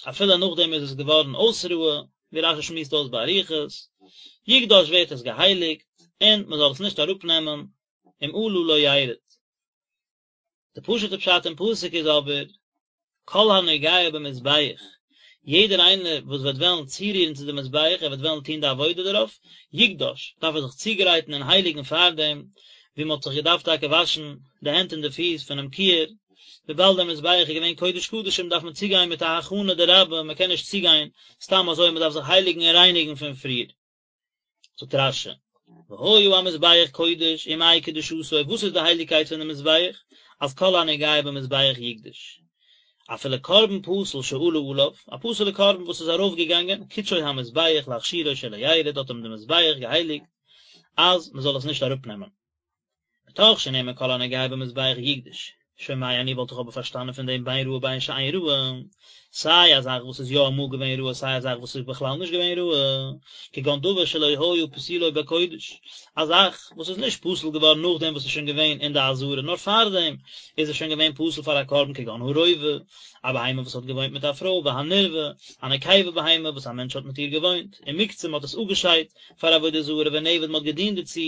אפילו נאכדעם איז עס געווארן אויס ראוי, ווי רש"י שמועסט אויס באריכות, יקדש ווערט עס געהייליגט, און מען זאל עס נישט אראפנעמען, אם עלה לא ירד. די פשוט'ע פשט אין פסוק איז אבער, כל הנוגע במזבח, יעדער איינער וואס וועט וועלן צורירן צו די מזבח, ער וועט וועלן טון די עבודה דערויף, יקדש, דארף ער זיך צוגרייטן און הייליגן פארדעם, ווי מען האט זיך געדארפט טאקע וואשן די הענט און די פיס פונעם כיור, וויבאלד דער מזבח איז געווען קודש קדשים דארף מען צוגיין מיט א הכנה דרבה, מען קען נישט צוגיין סתם אזוי, מען דארף זיך הייליגן און רייניגן פון פריער. זאגט רש"י, והיה המזבח קודש ומהי קדושתו, וואס איז די הייליגקייט פון די מזבח, אז כל הנוגע במזבח יקדש, אפילו קרבן פסול שעלה עליו, א פסול'ע קרבן וואס איז ארויף געגאנגען, קדשו המזבח להכשירו שלא ירד, האט אים די מזבח געהייליגט אז מען זאל עס נישט אראפ נעמען. מתוך שנאמר כל הנוגע במזבח יקדש, שומע אני וואלט איך אבער פארשטאנען פון דעם בין ראוי בין שאין ראוי, סיי א זאך וואס איז יא אמאל געווען ראוי סיי א זאך וואס איז בכלל נישט געווען ראוי, כגון דבר שלא היה פסולו בקודש, א זאך וואס איז נישט פסול געווארן נאכדעם וואס איז שוין געווען אין די עזרה נאר פארדעם איז עס שוין געווען פסול פאר א קרבן כגון הרובע, א בהמה וואס האט געוואוינט מיט א פרוי והנרבע, א נקבה בהמה וואס א מענטש האט מיט איר געוואוינט, ומוקצה מען האט עס אפגעשיידט פאר עבודה זרה ונעבד מען האט געדינט דערצו.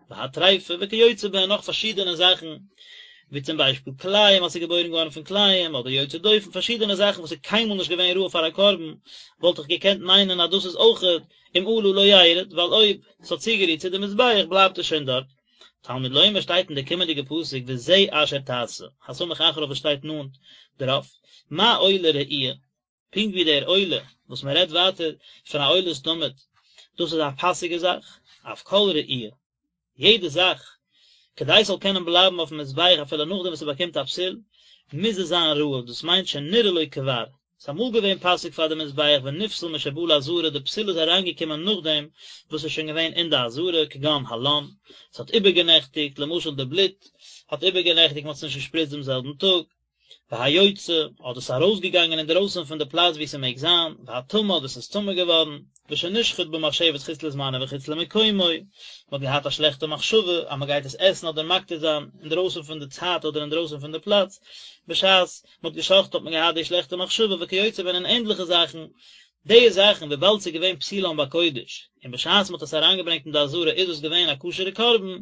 והטריפה וכיוצא בהן נאך פארשידענע זאכן, ווי צום ביישפיל כלאים אז ס'איז געבוירן געווארן פון כלאים, אדער יוצא דופן, פארשידענע זאכן וואס איז קיינמאל נישט געווען ראוי פאר א קרבן, וואלט איך געקענט מיינען אז דאס איז אויכעט אם עלה לא ירד, ווייל אויב ס'האט צוגערירט צו די מזבח בלייבט עס שוין דארט. תלמוד לומר שטייט אין די קומענדיגע פסוק וזה אשר תעשה, הסמוך אחריו וואס שטייט נאנט דערויף, מה עולה ראויה, פונקט ווי דער עולה וואס מען רעדט ווייטער פון א עולת תמיד, דאס איז א פאסיגע זאך, אף כל ראויה, יעדע זאך, כדי ס'זאל קענען בלייבן אויפן מזבח אפילו נאכדעם וואס ס'באקומט א פסול, מוז עס זיין ראוי, דאס מיינט שנראה לו כבר, ס'איז אמאל געווען פאסיג פאר די מזבח ונפסל משבא לעזרה, די פסול איז אריינגעקומען נאכדעם וואס ס'איז שוין געווען אין די עזרה, כגון הלן, ס'האט איבערגענעכטיגט, למשל די בלוט האט איבערגענעכטיגט, מ'האט עס נישט געשפריצט דעם זעלבן טאג. והיוצא, אדער ס'איז ארויסגעגאנגען אינדערויסן פון די פלאץ וואו ס'מעג זיין, והטמא אדער ס'איז טמא געווארן, ושנשחט במחשבת חוץ לזמנו וחוץ למקומו, מ'האט געהאט א שלעכטע מחשבה אז מ'גייט עס עסן אדער מקטיר זיין אינדערויסן פון די צייט אדער אינדערויסן פון די פלאץ, בשעת מ'האט גע'שחט'ט האט מען געהאט די שלעכטע מחשבה וכיוצא בהן און ענדליכע זאכן, די זאכן וויבאלד ס'איז געווען פסולם בקודש, און בשעת מ'האט עס אריינגעברענגט אין די עזרה איז עס געווען א כשר'ע קרבן,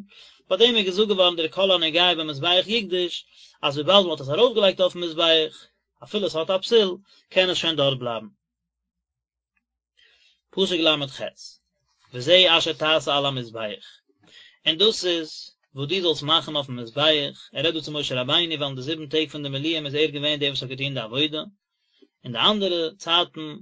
ביי דעם איז געזאגט געווארן דער כל הנוגע במזבח יקדש, אז וויבאלד מ'האט עס ארויפגעלייגט אויפן מזבח, אפילו עס האט א פסול, קען עס שוין דארט בלייבן. פסוק ל"ח, וזה אשר תעשה על המזבח, און דאס איז וואס דו זאלסט מאכן אויפן מזבח, ער רעדט דא צו משה רבינו ווייל אין די זיבן טעג פון די מילואים איז ער געווען דער וואס האט געטון די עבודה, אין די אנדערע צייטן,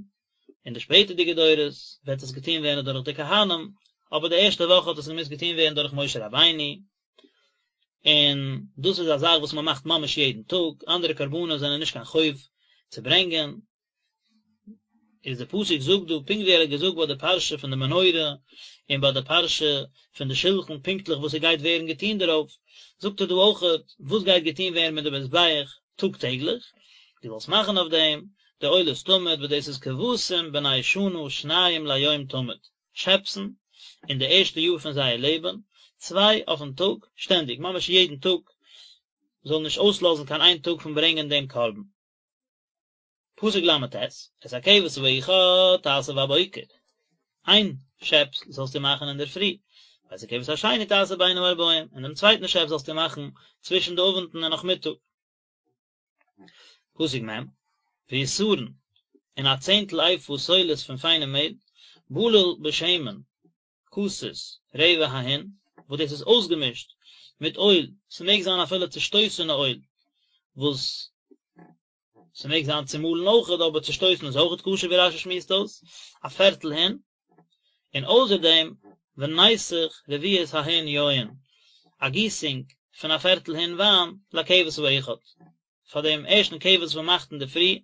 אין די שפעטערדיגע דורות, וועט עס געטון ווערן דורך די כהנים, אבער די ערשטע וואך האט עס געמוזט געטון ווערן דורך משה רבינו, און דאס איז א זאך וואס מען מאכט ממש יעדן טאג, אנדערע קרבנות זענען נישט קיין חוב צו ברענגען, איז די פסוק זאגט דא פונקט ווי ער האט געזאגט ביי די פרשה פון די מנורה און ביי די פרשה פון די שלחן פונקטליך וואס ס'גייט ווערן געטון דערויף, זאגט ער דא אויכעט וואס גייט געטון ווערן מיט די מזבח טאג טעגליך, דו זאלסט מאכן אויף דעם די עולת תמיד וואס דאס איז כבשים בני שנה שניים ליום תמיד, שעפסן אין די ערשטע יאר פון זייער לעבן, צוויי אויפן טאג, שטענדיג, ממש יעדן טאג, זאל נישט אויסלאזן קיין איין טאג פון ברענגען דעם קרבן. פסוק ל"ט, את הכבש האחד תעשה בבוקר, איין שעפס זאלסטו מאכן אינדערפרי, ואת הכבש השני תעשה בין הערבים, און דעם צווייטן שעפס זאלסטו מאכן צווישן די אוונטן און נאכמיטאג. פסוק מ', ועשרון, און א צענטל איפה סולת פון פיינעם מעהל, בלול בשמן, כתית, רבע ההין, וואס דאס איז אויסגעמישט מיט אויל, ס'מעג זיין אפילו צושטויסענע אויל, וואס ס'מעג זיין צומאלן אויכעט, אבער צושטויסן איז אויכעט כשר ווי רש"י שמועסט אויס, א פערטל הין, און אויסער דעם ונסך רביעית ההין יין, א גיסונג פון א פערטל הין וויין, לכבש האחד. פאר דעם ערשטן כבש וואס מען מאכט אינדערפרי,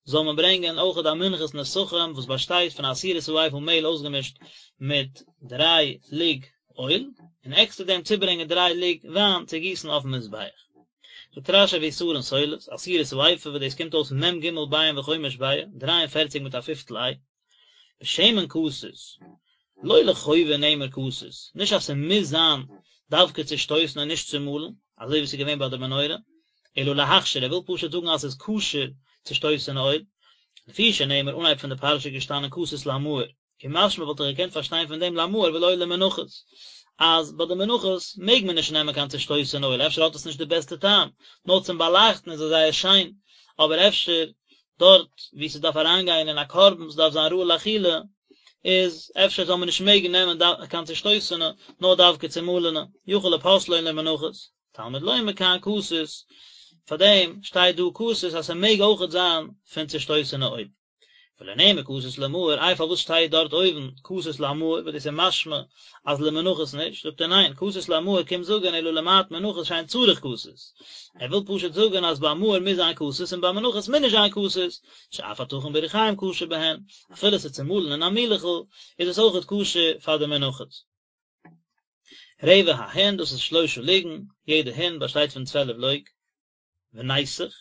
זאל מען ברענגען אויכעט א מנחת נסכים וואס באשטייט פון א עשירית האיפה מעהל אויסגעמישט מיט דריי לוג אויל, און עקסטער דעם צוברענגען דריי לוג וויין צו גיסן אויפן מזבח. זאגט רש"י ועשרון סולת, עשירית האיפה וואס דאס קומט אויס מ"ג ביעים וחומש ביעה, דריי און פערציג מיט א פיפטל איי. בשמן כתית, לא לחובה נאמר כתית, נישט אז ס'מוז זיין דווקא צושטויסן און נישט צומאלן, אזוי ווי ס'איז געווען ביי די מנורה, אלא להכשיר, ער וויל פשוט זאגן אז ס'איז כשר צושטויסענע אויל, לפי שנאמר אנהייב פון די פרשה איז געשטאנען כתית למאור, ומשמע וואלט איך געקענט פארשטיין פון דעם למאור ולא למנחות, אז ביי די מנחות מעג מען נישט נעמען קיין צושטויסענע אויל, אפשר האט עס נישט די בעסטע טעם, נאר צום באלייכטן איז עס זייער שיין, אבער אפשר דארט וואו ס'דארף אריינגיין אין א קרבן, ס'דארף זיין ראוי לאכילה, איז אפשר זאל מען נישט מעגן נעמען קיין צושטויסענע, נאר דווקא צומאלענע, יכול לפוסלו למנחות, תלמוד לומר כאן כתית, פארדעם שטייט דא כתית אז ס'מעג אויכעט זיין פון צושטויסענע אויל. ולא נאמר כתית למאור, איי פארוואס שטייט דארט אויבן כתית למאור, וואס דאס איז משמע אז למנחות נישט, זאגט ער ניין, כתית למאור קומט זאגן אלא למעט מנחות שאין צריך כתית, ער וויל פשוט זאגן אז ביי מאור מוז זיין כתית און ביי מנחות מוז נישט זיין כתית, שאף הטחון בריחים כשר בהן, אפילו עס איז צומאלן אין א מילעכל איז עס אויכעט כשר פאר די מנחות. רבע ההין, דאס איז שלושה לוגין, יעדע הין באשטייט פון צוועלף לוג. ונסך,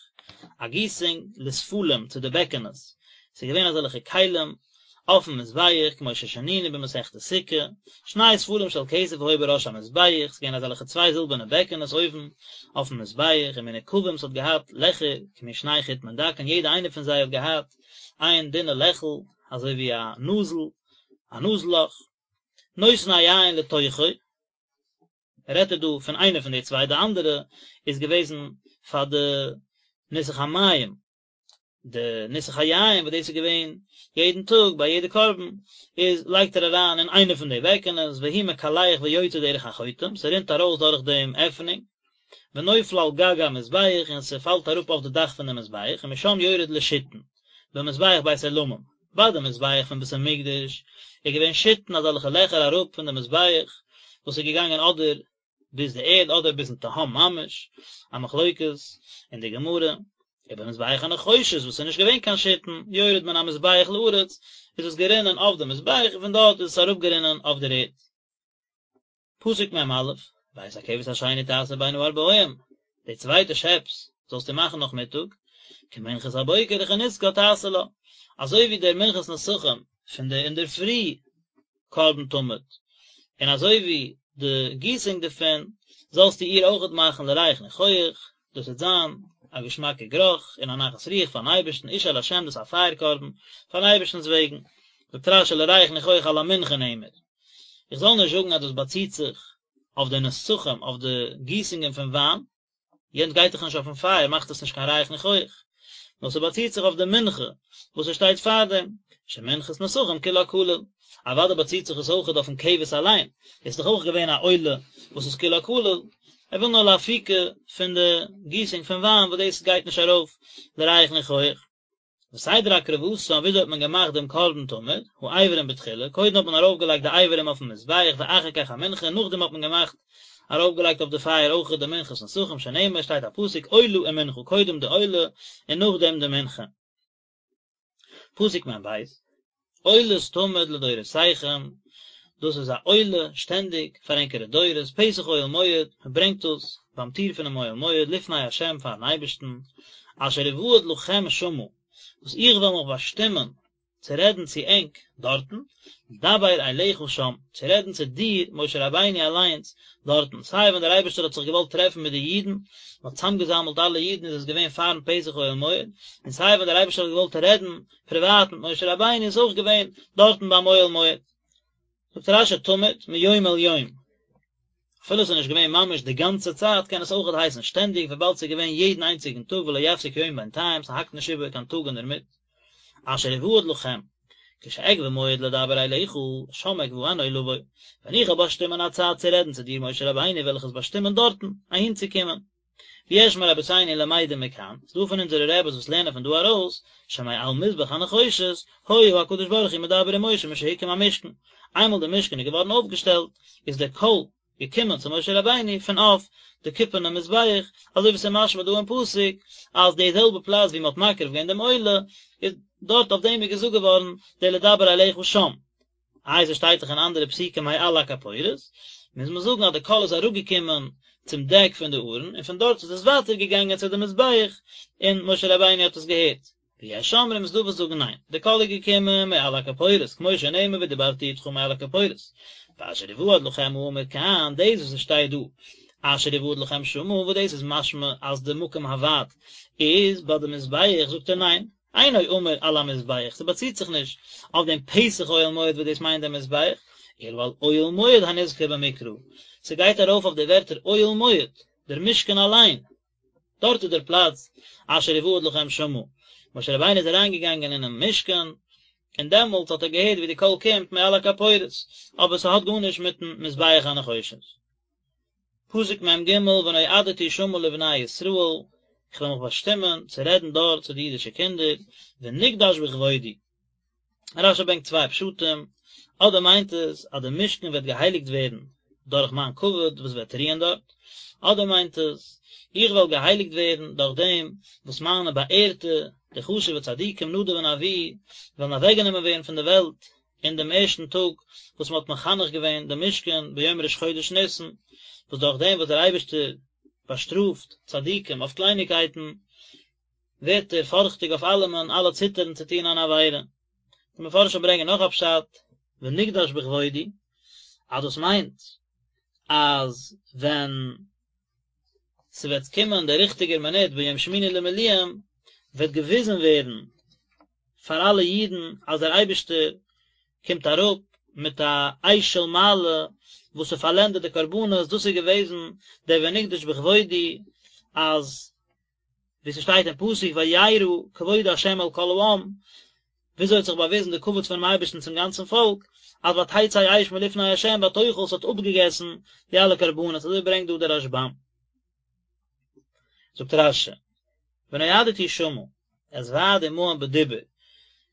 א גיסונג לספלים צו די בעקענעס, ס'איז געווען אזעלכע כלים אויפן מזבח כמו ששנינו במסכת סוכה, שני ספלים של כסף היו בראש המזבח, ס'איז געווען אזעלכע צוויי זילבערנע בעקענעס אויבן אויפן מזבח, ומנוקבים ס'האט געהאט לעכער כמין שני חוטמין דקין, יעדע איינע פון זיי האט געהאט איין דינע לעכל אזוי ווי א נאזל, א נאז לאך, נותן היין לתוכו. רעדט ער דא פון איינע פון די צוויי, די אנדערע איז געוועזן פאר די ניסוך המים, די ניסוך היין וואס דאס איז געווען יעדן טאג ביי יעדע קרבן, איז לייגט ער אריין אין איינע פון די בעקענעס, והוא מקלח ויוצא דרך החוטם, ס'רינט ארויס דורך דעם עפענונג, ונופל על גג המזבח, און ס'פאלט אראפ אויף די דאך פון די מזבח, ומשם יורד לשיתין, במזבח בית עולמים, ביי די מזבח פון בית המקדש איז געווען שיתין אזעלכע לעכער אראפ פון די מזבח וואס איז געגאנגען אדער ביז די ערד אדער ביזן תהום ממש, א מחלוקת אין די גמרא, ובמזבח הנחושת וואס איז נישט געווען קיין שיתין, יורד מן המזבח לארץ, איז עס גערינען אויף די מזבח און פון דארט איז עס אראפגערינען אויף דער ערד. פסוק מ"א, ואת הכבש השני תעשה בין הערבים, די צווייטע שעפס. זאלסטו מאכן נאכמיטאג, כמנחת הבוקר וכנסכה תעשה לה, אזוי ווי דער מנחת נסכים פון די אינדערפרי קרבן תמיד, און אזוי ווי די גיסונג דערפון, זאלסטו איר אויכעט מאכן לריח ניחוח, דאס וועט זיין א געשמאקע גערוך און א נחת רוח פארן אייבערשטן, אשה לה' דאס איז א פייער קרבן פארן אייבערשטנ'ס וועגן, זאגט רש"י לריח ניחוח על המנחה נאמר, איך זאל נישט זאגן אז דאס באציט זיך אויף די נסכים, אויף די גיסונגען פון וויין, יענץ גייט דאך נישט אויפן פייער מאכט עס נישט קיין ריח ניחוח, נאר ס'באציט זיך אויף די מנחה וואס עס שטייט פארדעם, שמנחת נסכים כולה כליל, אוודאי באציט זיך עס אויכעט אויפן כבש אליין, עס איז דאך אויך געווען א עולה וואס איז כולה כליל, ער וויל נאר לאפוקי פון די גיסונג פון וויין וואס דאס גייט נישט ארויף לריח ניחוח. וסדר הקרבתם, וויאזוי האט מען געמאכט דעם קרבן תמיד, האיברים בתחילה, קודם האט מען ארויפגעלייגט די איברים אויפן מזבח ואחר כך המנחה, נאכדעם האט מען געמאכט ארויפגעלייגט אויף די פייער אויכעט די מנחת נסכים, שנאמר שטייט א פסוק עולה ומנחה, קודם די עולה און נאכדעם די מנחה. פסוק מ"ב, עולת תמיד לדורותיכם, דאס איז א עולה שטענדיג פאר ענקערע דורות, פתח אוהל מועד, מען ברענגט דאס ביים טיר פונעם אוהל מועד לפני ה' פארן אייבערשטן, אשר אועד לכם שמה, וואס איך וועל מיך באשטימען צו רעדן צו ענק דארטן, לדבר אליך שם, צו רעדן צו דיר, משה רבינו אליינס, דארטן, סיי ווען דער אייבערשטער האט זיך געוואלט טרעפן מיט די אידן, מען האט צוזאמגעזאמלט אלע אידן איז עס געווען פארן פתח אוהל מועד, און סיי ווען דער אייבערשטער האט געוואלט רעדן פריוואט מיט משה רבינו איז אויך געווען דארטן ביים אוהל מועד. זאגט רש"י תמיד מיום אל יום, אפילו עס איז נישט געווען ממש די גאנצע צייט קען עס אויכעט הייסן שטענדיג וויבאלד ס'איז געווען יעדן איינציגן טאג ולא יפסיק יום בינתיים ס'האקט נישט איבער קיין טאג אינדערמיט. אשר אועד לכם, כשאקבע מועד לדבר אליך, שם אקבענו לבוא, ווען איך וועל באשטימען א צייט צו רעדן צו דיר משה רבינו וועל איך עס באשטימען דארטן, אהינצוקומען. ויש מרבותינו למדים מכאן, ס'דא פון אונזערע רעבעס וואס לערנען פון דא ארויס, שמעל מזבח הנחושת, היה הקדוש ברוך הוא מדבר עם משה משהוקם המשכן, איינמאל די משכן איז געווארן אויפגעשטעלט, איז דער קול געקומען צו משה רבינו פון אויף די קופערנע מזבח, אזוי ווי ס'איז משמע דא אין פסוק, אז די זעלבע פלאץ ווי מ'האט מקריב געווען דעם עולה, איז דארט אויף דעם איז געזאגט געווארן דער לדבר אליך שם. איי ס'שטייט דאך אין אנדערע פסוקים מעל הכפורת, מוז מען זאגן אז די קול איז אראפגעקומען צום דעק פון די ארון און פון דארט איז עס ווייטער געגאנגען צו די מזבח און משה רבינו האט עס געהערט. ויש אומרים ס'דא וואס זאגן ניין, די קול איז געקומען מעל הכפורת, כמו שנאמר ודברתי אתך מעל הכפורת, ואשר אועד לכם האמור כאן, דאס וואס עס שטייט דא אשר אועד לכם שמה, וואס דאס איז משמע אז די מקום הוועד איז ביי די מזבח, זאגט ער ניין, אינו אמור על המזבח, ס'באציט זיך נישט אויף דעם פתח אוהל מועד וואס דאס מיינט דעם מזבח, אלא על אוהל מועד הנזכר במקרא, ס'גייט ארויף אויף די ווערטער אוהל מועד, דער משכן אליין, דארט איז דער פלאץ אשר אועד לכם שמה, משה רבינו איז אריינגעגאנגען אינעם משכן, און דעמאלטס האט ער געהערט ווי די קול קומט מעל הכפורת, אבער ס'האט גארנישט מיטן מזבח הנחושת. פסוק מ"ג ונועדתי שמה לבני ישראל, איך וועל מיך באשטימען צו רעדן דארט צו די אידישע קינדער, ונקדש בכבודי. רש"י ברענגט צוויי פשטים, אדער מיינט עס אז די משכן וועט געהייליגט ווערן דורך מיין כבוד וואס וועט רוען דארט, אדער מיינט עס, איך וועל געהייליגט ווערן דורך דעם וואס מיינע באערטע, די חשוב'ע צדיקים נדב און אביהוא, וועלן אוועקגענומען ווערן פון די וועלט אין דעם ערשטן טאג וואס מען האט מחנך געווען דעם משכן ביום ראש חודש ניסן, וואס דורך דעם וואס דער אייבערשטער באשטראפט צדיקים אויף קלייניקייטן, ווערט ער פארכטיג אויף אלעמען, אלע ציטערן צו טון אן עבירה. די מפרשים ברענגען נאך א פשט, ונקדש בכבודי, אז דאס מיינט אז ווען ס'וועט קומען דער ריכטיגער מינוט ביום שמיני למילואים, וועט געוויזן ווערן פאר אלע אידן אז דער אייבערשטער קומט אראפ מיט א אש של מעלה וואס ס'פארלענדט די קרבנות, דאס איז געוועזן דער ונקדש בכבודי, אז ווי ס'שטייט אין פסוק וירא כבוד ה' אל כל העם, וויאזוי האט זיך באוויזן די כבוד פונעם אייבערשטן צום גאנצן פאלק, אז ותצא אש מלפני ה' ותאכל ס'האט אפגעגעסן די אלע קרבנות, אזוי ברענגט דא דער רשב"ם. זאגט רש"י, ונועדתי שמה, אתוועד עמהם בדיבור,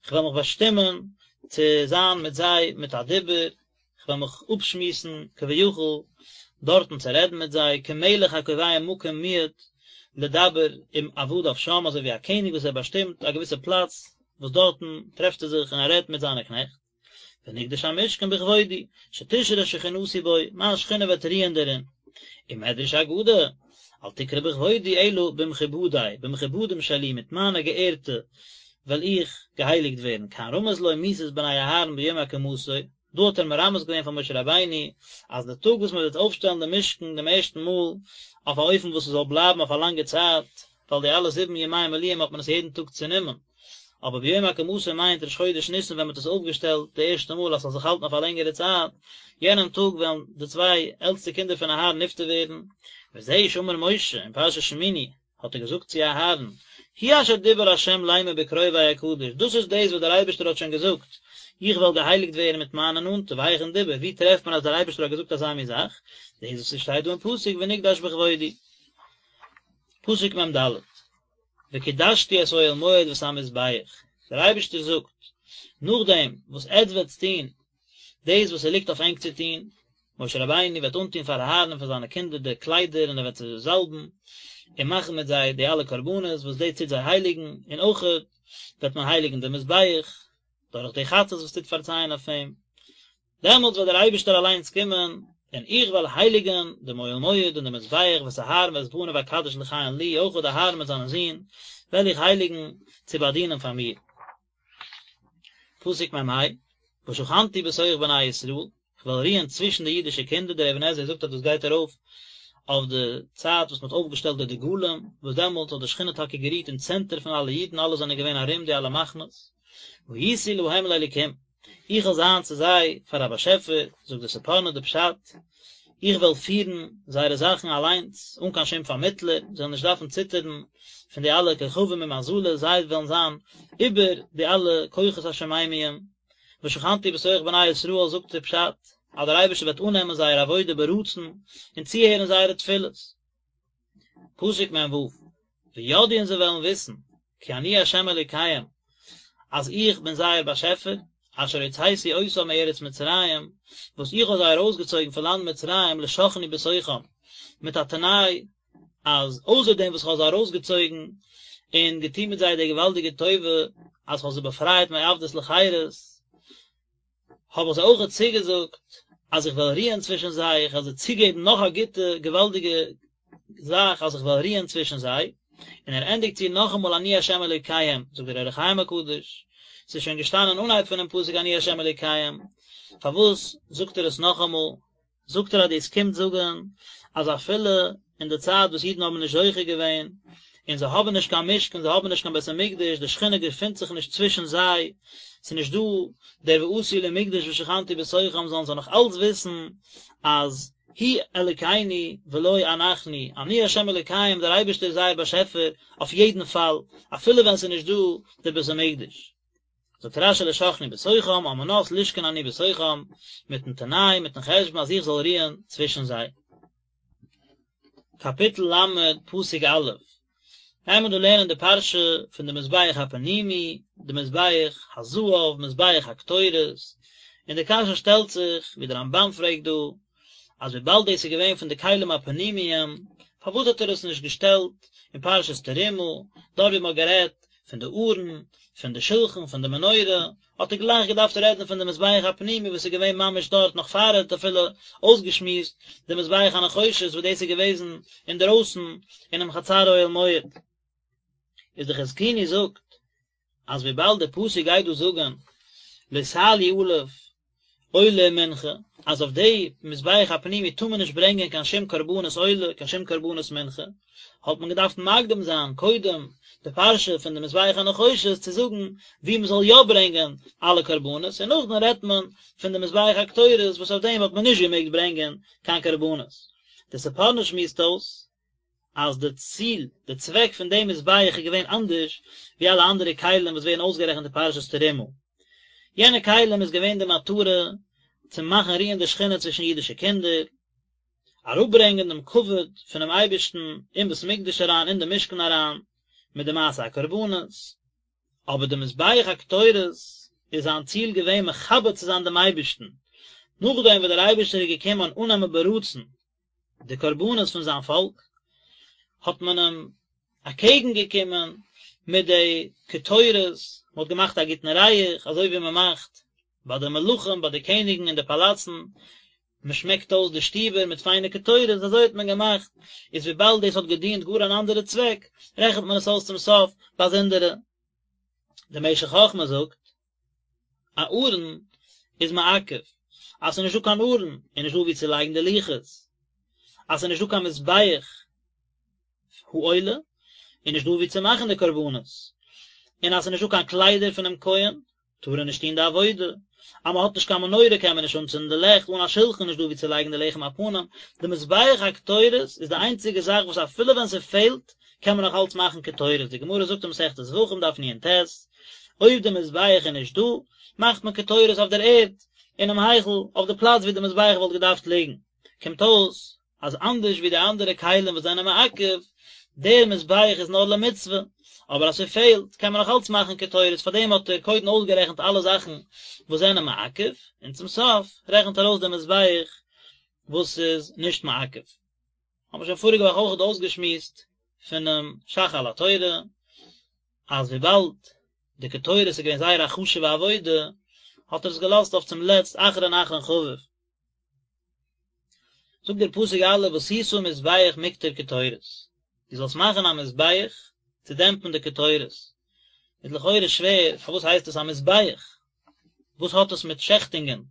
איך וועל מיך באשטימען צו זיין מיט זיי מיט א דיבור, איך וועל מיך אפשמועסן כביכול דארטן צו רעדן מיט זיי, כמלך הקובע מקום מועד לדבר עם עבדיו שם, אזוי ווי א קעניג וואס ער באשטימט א געוויסע פלאץ וואס דארטן טרעפט ער זיך און ער רעדט מיט זיינע קנעכט, ונקדש המשכן בכבודי, שתשרה שכינתי בו, מיין שכינה וועט רוען דערין. ומדרש אגדה. אל תקרי בכבודי אלא במכובדי, במכובדים שלי, מיט מיינע געערטע וועל איך געהייליגט ווערן, כאן רמז לו מיתת בני אהרן ביום הקמתו, דא האט ער מרמז געווען פאר משה רבינו אז די טאג וואס מען וועט אויפשטעלן די משכן דעם ערשטן מאל אויף א אופן וואס עס זאל בלייבן אויף א לאנגע צייט, ווייל די אלע זיבן ימי מילואים האט מען עס יעדן טאג צענומען, אבער ביום הקמתו מיינט ראש חודש ניסן ווען מען האט עס אויפגעשטעלט די ערשטע מאל אז ס'זאל זיך האלטן אויף א לענגערע צייט, יענעם טאג וועלן די צוויי עלטסטע קינדער פון אהרן נפטר ווערן, וזהו שאמר משה אין פרשת שמיני, האט ער געזאגט צו אהרן, הוא אשר דיבר ה' לאמר בקרובי אקדש, דאס איז דאס וואס דער אייבערשטער האט שוין געזאגט, איך וועל געהייליגט ווערן מיט מיינע נאנטע, והיכן דיבר, וואו טרעפט מען אז דער אייבערשטער האט געזאגט אזא מין זאך, דאס וואס עס שטייט דא אין פסוק ונקדש בכבודי. פסוק מ ד, וקדשתי את אוהל מועד ואת המזבח, דער אייבערשטער זאגט, נאכדעם וואס עטץ וועטס טון דאס וואס ס'ליגט אויף ענק צו טון, משה רבינו וועט אנטון פאר אהרן און פאר זיינע קינדער די קליידער און ער וועט זיי זאלבן און מאכן מיט זיי די אלע קרבנות וואס דאס טוט זיי הייליגן, און אויכעט וועט מען הייליגן די מזבח דורך די חטאת וואס טוט פארצייען אויף אים, דעמאלטס וועט דער אייבערשטער אליינס קומען און איך וועל הייליגן דעם אוהל מועד און דעם מזבח ואת אהרן ואת בניו אקדש לכהן לי, אויכעט אהרן מיט זיינע זין וועל איך הייליגן צו באדינען פאר מיר. פסוק מ ה, ושכנתי בתוך בני ישראל, איך וועל רוען צווישן די אידישע קינדער, דער אבן עזרא זאגט אז דאס גייט ארויף אויף די צייט וואס מען האט אויפגעשטעלט די דגלים, וואס דעמאלט האט די שכינה טאקע גערוהט אין צענטער פון אלע אידן, אלע זענען געווען ארום די אלע מחנות, והייתי להם לאלוקים, איך וועל זיין צו זיי פאר א באשעפער, זאגט די ספורנו די פשט, איך וועל פירן זייערע זאכן אליינס, אן קיין שום פארמיטלער, זיי וועלן נישט דארפן ציטערן פון די אלע כוכבים און מזלות, זיי וועלן זיין איבער די אלע כוחות השמימיים. ושכנתי בתוך בני ישראל זאגט דער פשט, אז דער אייבערשטער וועט אננעמען זייער עבודה ברצון, און צוהערן זייערע תפילות. פסוק מ ו, וידעו און זיי וועלן וויסן, כי אני ה' אלוקיהם, אז איך בין זייער באשעפער, אשר הוצאתי אותם מארץ מצרים, וואס איך האב זיי ארויסגעצויגן פון לאנד מצרים לשכני בתוכם, מיט א תנאי, אז אויסער דעם וואס איך האב זיי ארויסגעצויגן און געטון מיט זיי די געוואלדיגע טובה, אז איך האב זיי באפרייט מעבדות לחירות, האב איך זיי אויכעט צוגעזאגט אז איך וועל רוען צווישן זיי, איך וועל זיי צוגעבן נאך א גוטע געוואלדיגע זאך אז איך וועל רוען צווישן זיי, און ער ענדיגט צו נאכאמאל אני ה' אלוקיהם, זאגט דער אור החיים הקדוש, ס'איז שוין געשטאנען אנהייב פונעם פסוק אני ה' אלוקיהם, פארוואס זאגט ער עס נאכאמאל? זאגט ער אז דאס קומט זאגן אז אפילו אין די צייט וואס אידן האבן נישט זוכה געווען, און זיי האבן נישט קיין משכן, זיי האבן נישט קיין בית המקדש, די שכינה געפינט זיך נישט צווישן זיי, ס'איז נישט דא דער ועשו לי מקדש ושכנתי בתוכם, זאלן זיי נאך אלץ וויסן אז הוא אלוקינו ולא אנחנו, אני ה' אלוקיהם, דער אייבערשטער איז זייער באשעפער אויף יעדן פאל, אפילו ווען ס'איז נישט דא דער בית המקדש. זאגט רשי לשכני בתוכם על מנת לשכון אני בתוכם, מיטן תנאי, מיטן חשבון אז איך זאל רוען צווישן זיי. קאפיטל ל', פסוק א', גייען מיר דא לערנען די פרשה פון די מזבח הפנימי, די מזבח הזהב, מזבח הקטורת, און די קשיא שטעלט זיך, ווי דער רמבן פרעגט דא, אז וויבאלד דאס איז געווען פון די כלים הפנימיים, פארוואס האט ער עס נישט געשטעלט אין פרשת תרומה, דארט ווי מען האט גערעדט פון די ארון, פון די שלחן, פון די מנורה, האט ער גלייך געדארפט רעדן פון די מזבח הפנימי וואס איז געווען ממש דארט נאך פאר ער האט אפילו אויסגעשמועסט די מזבח הנחושת וואס דאס איז געוועזן אינדערויסן אינעם חצר אוהל מועד. איז די חזקוני זאגט אז וויבאלד די פסוק גייט דא זאגן לא תעלו עליו עולה ומנחה, אז אויף די מזבח הפנימי טאר מען נישט ברענגען קיין שום קרבנות עולה, קיין שום קרבנות מנחה, האט מען געדארפט מקדים זיין קודם די פרשה פון די מזבח הנחושת צו זאגן וואו מען זאל יא ברענגען אלע קרבנות, און נאכדעם רעדט מען פון די מזבח הקטורת וואס אויף דעם האט מען נישט געמעגט ברענגען קיין קרבנות. די ספורנו שמועסט אויס אז די ציל, די צוועק פון דעם מזבח איז געווען אנדערש ווי אלע אנדערע כלים וואס ווערן אויסגערעכנט אין פרשת תרומה. יענע כלים איז געווען די מטרה צו מאכן רוען די שכינה צווישן אידישע קינדער, אראפברענגען דעם כבוד פונעם אייבערשטן אין בית המקדש אריין, אין די משכן אריין, מיט די מעשה הקרבנות. אבער די מזבח הקטורת איז זיין ציל געווען מכבד צו זיין דעם אייבערשטן, נאכדעם וואס דער אייבערשטער איז געקומען אננעמען ברצון די קרבנות פון זיין פאלק, האט מען אים אקעגן געקומען מיט די קטורת, מען האט געמאכט א גוטן ריח, אזוי ווי מען מאכט ביי די מלכים, ביי די קעניגן אין די פאלאצן. מען שמעקט אויס די שטיבער מיט פיינע קטורת, אזוי האט מען געמאכט, איז וויבאלד דאס האט געדינט גאר אן אנדערע צוועק, רעכנט מען עס אויס צום סוף באזונדערע. דער משך חכמה זאגט, א ארון איז מעכב, אז ס'איז נישטא קיין ארון איז נישטא וואו צו לייגן די לוחות, אז ס'איז נישטא קיין מזבח העולה איז נישטא וואו צו מאכן די קרבנות, און אז ס'איז נישטא קיין קליידער פונעם כהן טאר ער נישט טון די עבודה, אז מען האט נישט קיין מנורה קען מען נישט אנצינדן די לעכט, אן א שלחן איז נישט דא וואו צו לייגן די לחם הפנים, די מזבח הקטורת איז די איינציגע זאך וואס אפילו ווען ס'פעלט קען מען נאך אלץ מאכן קטורת, די גמרא זאגט אין מסכת זבחים דף נ"ט, אויב די מזבח איז נישט דא, מאכט מען קטורת אויף דער ערד, אינעם היכל, אויף די פלאץ וואו די מזבח וואלט געדארפט ליגן, קומט אויס אז אנדערש ווי די אנדערע כלים וואס זענען מעכב, דער מזבח איז נאר למצוה, אבער אז ס'פעלט קען מען נאך אלץ מאכן קטורת, פארדעם האט ער קודם אויסגערעכנט אלע זאכן וואס זענען מעכב, און צום סוף רעכנט ער אויס דעם מזבח וואס איז נישט מעכב. האבן מיר שוין פאריגע וואך אויכעט אויסגעשמועסט פונעם ש"ך על התורה, אז וויבאלד די קטורת איז געווען זייער א חשוב'ע עבודה, האט ער עס געלאזט אויף צום לעצט אחרון אחרון חביב. זאגט דער פסוק א' ועשית מזבח מקטר קטורת, דו זאלסט מאכן א מזבח צו דעמפן די קטורת, איז לכאורה שווער, פארוואס הייסט עס א מזבח? וואס האט עס מיט שעכטונגען?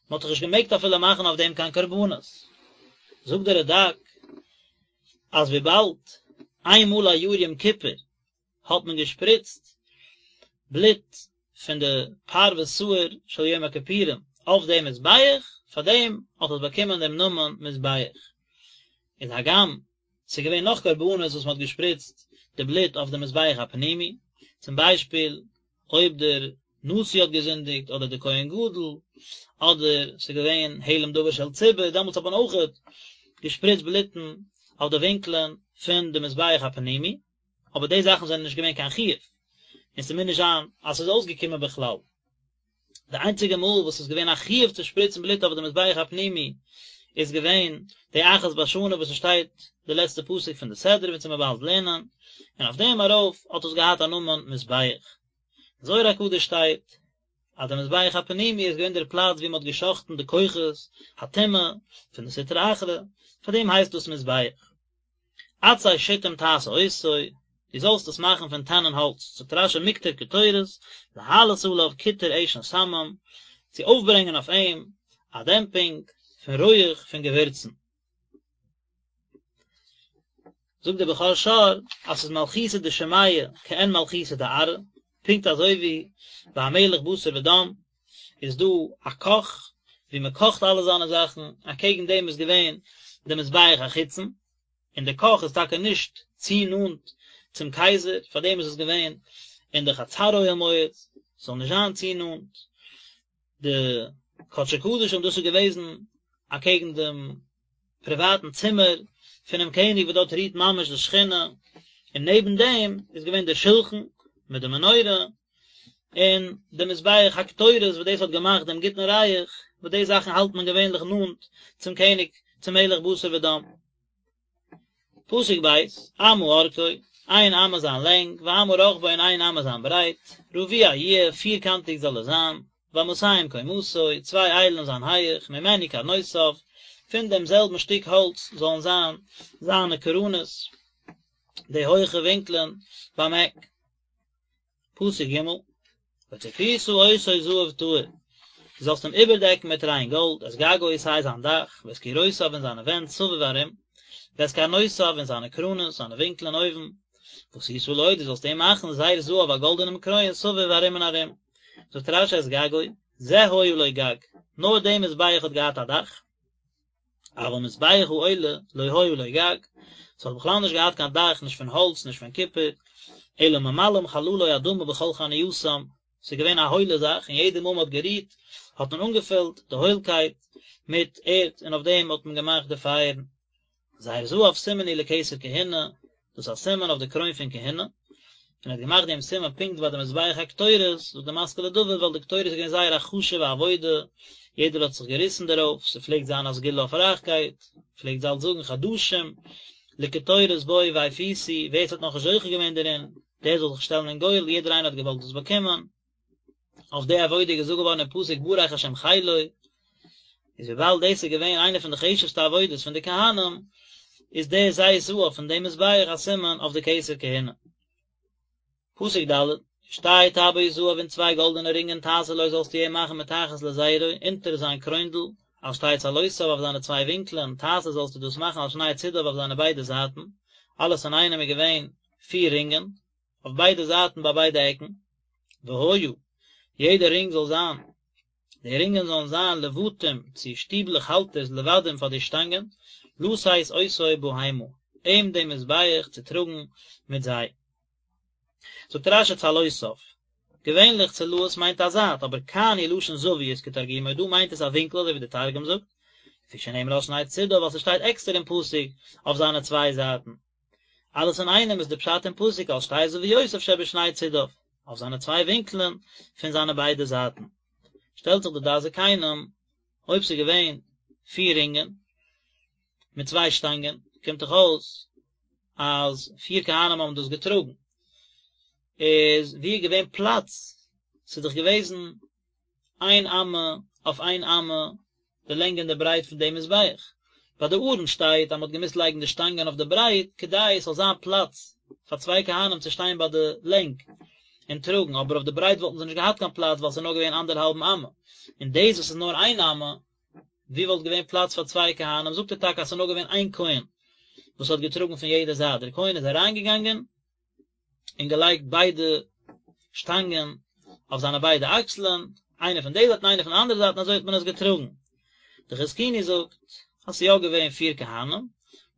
מען האט דאך נישט געמעגט אפילו מאכן אויף דעם קיין קרבנות. זאגט דער רד"ק אז וויבאלד איין מאל א יאר יום כיפור האט מען געשפריצט בלוט פון די פר ושעיר של יום הכיפורים אויף דעם מזבח, פאר דעם האט עס באקומען דעם נאמען מזבח. איז הגם ס'איז געווען נאך קרבנות וואס מ'האט געשפריצט די בלוט אויף די מזבח הפנימי, צום ביישפיל אויב דער נשיא האט געזינדיגט אדער דער כהן גדול, אדער ס'איז געווען העלם דבר של ציבור, דעמאלטס האט מען אויכעט געשפריצט בלוטן אויף די ווינקלען פון די מזבח הפנימי. אבער די זאכן זענען נישט געווען קיין חיוב, און ס'מוז נישט זיין אז ס'איז אויסגעקומען בכלל. די איינציגע מאל וואס ס'איז געווען א חיוב צו שפריצן בלוט אויף די מזבח הפנימי איז געווען די אחת בשנה וואס ס'שטייט די לעצטע פסוק פון די סדרה וועט מען באלד לערנען, און אויף דעם ארויף האט עס געהאט א נאמען מזבח. זוהר הקדוש שטייט אז די מזבח הפנימי איז געווען דער פלאץ וואו מ'האט גע'שחט'ן די כוחות הטומאה פון די סטרא אחרא, פאר דעם הייסט דאס מזבח. עצי שטים תעשה אותו, דו זאלסט עס מאכן פון טענען האלץ, זאגט רש"י מקטר קטורת, להעלות עליו קיטור עשן שמים, צו אויפברענגען אויף אים א דעמפינג פון רויעך פון געווירצן. זאגט דער בכור שור אז ס'איז מלכותא דשמיא כעין מלכותא דארעא, פונקט אזוי ווי ביי א מלך בשר ודם איז דא א קאך ווי מען קאכט אלע זיינע זאכן, אקעגן דעם איז געווען די מזבח החיצון, און די קאך איז טאקע נישט צו נאנט צום קייזער, פאר דעם איז עס געווען אין די חצר אוהל מועד, ס'זאל נישט זיין צו נאנט. די קדשי קדשים דאס איז געוועזן אקעגן דעם פריוואטן צימער פונעם קעניג וואס דארט רוהט ממש די שכינה, און נעבן דעם איז געווען דער שולחן מיט די מנורה, און די מזבח הקטורת וואס דאס האט געמאכט דעם גוטן ריח, וואס די זאכן האלט מען געווענליך נאנט צום קעניג, צום מלך בשר ודם. פסוק ב', אמה ארכו, איין אמה זיין לענג, ואמה רחבו און איין אמה זיין ברייט, רבוע יהיה, פירקאנטיג זאל עס זיין, ואמתים קומתו, צוויי איילן זיין הייך, ממנו קרנותיו, פון דעם זעלבן שטיק האלץ זאלן זיין זיינע קרנות, די הויכע ווינקלען ביים עק. פסוק ג', וצפית אותו זהב טהור, דו זאלסט אים איבערדעקן מיט ריין גאלד, את גגו סיי זיין דאך, ואת קירותיו און זיינע ווענט סביב ארום, ואת קרנותיו און זיינע קרנות, זיינע ווינקלען אויבן, ועשית לו, דו זאלסט אים מאכן זר זהב א גאלדענעם קרוין סביב ארום און ארום. זאגט רש"י את גגו, זה היה לו גג, נאר דעם מזבח האט געהאט א דאך, אבל מזבח העולה לא היה לו גג, ס'האט בכלל נישט געהאט קיין דאך נישט פון האלץ נישט פון קופער, אלא ממלאים חללו אדמה בכל חנייתם, ס'איז געווען א הוילע זאך און יעדע מאל מ'האט גערוהט האט מען אנגעפילט די הוילקייט מיט ערד און אויף דעם האט מען געמאכט די פייערן. זר זהב סימן הוא לכתר כהונה, דאס איז א סימן אויף די קרוין פון כהונה, און ער האט געמאכט דעם סימן פונקט ביי די מזבח הקטורת, זאגט די משכיל לדוד, ווייל די קטורת איז געווען זייער א חשוב'ע עבודה, יעדער האט זיך געריסן דערויף, ס'פלעגט זיין א סגולה אויף רייכקייט, פלעגט ז"ל זאגן חדשים לקטורת בואו והפיסו, ווער ס'האט נאכנישט זוכה געווען דערין, דער זאל זיך שטעלן אין גורל, יעדער איינער האט געוואלט דאס באקומען. אויף די עבודה איז געזאגט געווארן אין פסוק ברך השם חילו. איז וויבאלד דאס איז געווען איינע פון די חשוב'סטע עבודות פון די כהנים, איז דער זר זהב פון דעם מזבח א סימן אויף די כתר כהונה. פסוק ד', ושתי טבעות זהב און צוויי גאלדענע רינגען תעשה לו זאלסטו אים מאכן מתחת לזרו, אונטער זיין קרוינדל, על שתי צלעותיו אויף זיינע צוויי ווינקלען, תעשה זאלסטו דאס מאכן על שני צדיו אויף זיינע ביידע זייטן, אלעס אינאיינעם איז געווען פיר רינגען, אויף ביידע זייטן ביי ביידע עקן, והיה, יעדע רינג זאל זיין, די רינגען זאלן זיין לבתים צו שטיבלעך האלטערס לבדים פאר די שטאנגען, לשאת אותו בהמה, אים דעם מזבח צו טראגן מיט זיי. זאגט רש"י צלעותיו, געווענליך צלעות מיינט א זייט, אבער כאן הוא לשון זוויות כתרגומו, דא מיינט עס א ווינקל אזוי ווי די תרגום זאגט, לפי שנאמר על שני צדיו ווייל ס'שטייט עקסטער אין פסוק אויף זיינע צוויי זייטן. אלעס אינאיינעם איז די פשט אין פסוק על שתי זוויותיו שבשני צדיו, אויף זיינע צוויי ווינקלען פון זיינע ביידע זייטן. שטעלט זיך די דעת זקנים, אויב ס'איז געווען פיר רינגען מיט צוויי שטאנגען, קומט דאך אויס אז פיר כהנים האבן דאס געטראגן, איז ווי איז געווען פלאץ? ס'איז דאך געוועזן איין אמה אויף איין אמה די לענג און די ברייט פון דעם מזבח. ביי די ארון שטייט אז מ'האט געמוזט לייגן די שטאנגען אויף די ברייט כדי עס זאל זיין פלאץ פאר צוויי כהנים צו שטיין ביי די לענג און טראגן, אבער אויף די ברייט וואלטן זיי נישט געהאט קיין פלאץ ווייל ס'איז נאר געווען אנדערהאלבן אמה, און דאס וואס איז נאר איין אמה, ווי וואלט געווען פלאץ פאר צוויי כהנים, זאגט ער טאקע אז ס'איז נאר געווען איין כהן וואס האט געטראגן פון יעדע זייט, דער כהן איז אריינגעגאנגען און געלייגט ביידע שטאנגען אויף זיינע ביידע אקסלען, איינע פון די זייט און איינע פון די אנדערע זייט און אזוי האט מען עס געטראגן. די חזקוני זאגט אז ס'איז יא געווען פיר כהנים,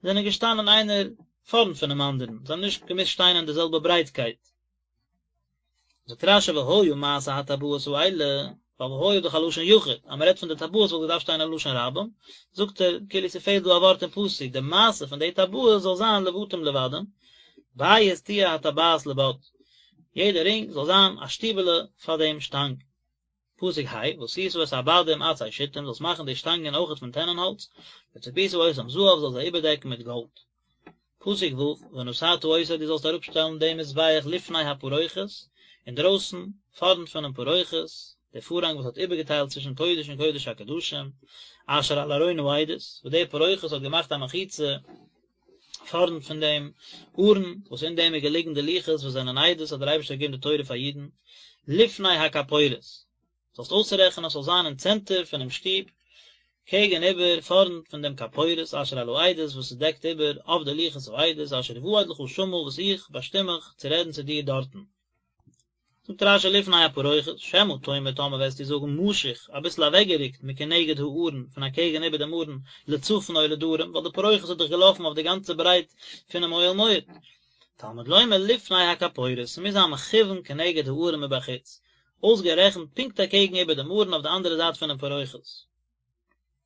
זיי זענען געשטאנען איינער פארנט פונעם אנדערן, זיי האבן נישט געמוזט שטיין אין די זעלבע ברייטקייט. זאגט רש"י והיה מעשה הטבעות האלה, ווייל והיה איז דאך א לשון יחיד, אז מען רעדט פון די טבעות וואלט געדארפט שטיין א לשון רבים, זאגט ער, כאילו ס'פעלט דא א ווארט אין פסוק, די מעשה פון די טבעות זאל זיין לבתים לבדים, בית תהיה הטבעת לבד, יעדע רינג זאל זיין א שטיבעלע פאר דעם שטאנג. פסוק ה', ועשית את הבדים עצי שטים, זאלסט מאכן די שטאנגען אויכעט פון טענענהאלץ, וצפית אותם זהב, זאלסט זיי איבערדעקן מיט גאלד. פסוק ו', ונתתה אותו, דו זאלסט אראפשטעלן דעם מזבח לפני הפרוכת, אינדרויסן, פארנט פונעם פרוכת, דער פארהאנג וואס האט איבערגעטיילט צווישן קודש און קודש הקדשים, אשר על ארון העדות, וואס דער פרוכת האט געמאכט א מחיצה פארנט פון דעם ארון, וואס אין דעם איז געליגן די לוחות וואס זענען עדות אז דער אייבערשטער האט געגעבן די תורה פאר אידן, לפני הכפורת, זאלסט אויסרעכענען אז ס'זאל זיין אין צענטער פונעם שטוב, קעגן איבער, פארנט פון דעם כפורת אשר על העדות וואס עס דעקט איבער אויף די לוחות העדות אשר אועד לך שמה וואס איך באשטים מיך צו רעדן צו דיר דארטן. זאגט רש"י לפני הפרוכת, שמא תאמר טאמער וועסטו זאגן משוך, אביסל אוועקגערוקט מכנגד הארון, פון אקעגן איבער דעם ארון, לצפון או לדרום, ווייל די פרוכת האט דאך געלאפן אויף די גאנצע ברייט פונעם אוהל מועד. תלמוד לומר לפני הכפורת, ס'מוז זיין מכוון כנגד הארון מבחוץ, אויסגערעכנט פונקט אקעגן איבער דעם ארון אויף די אנדערע זייט פונעם פרוכת.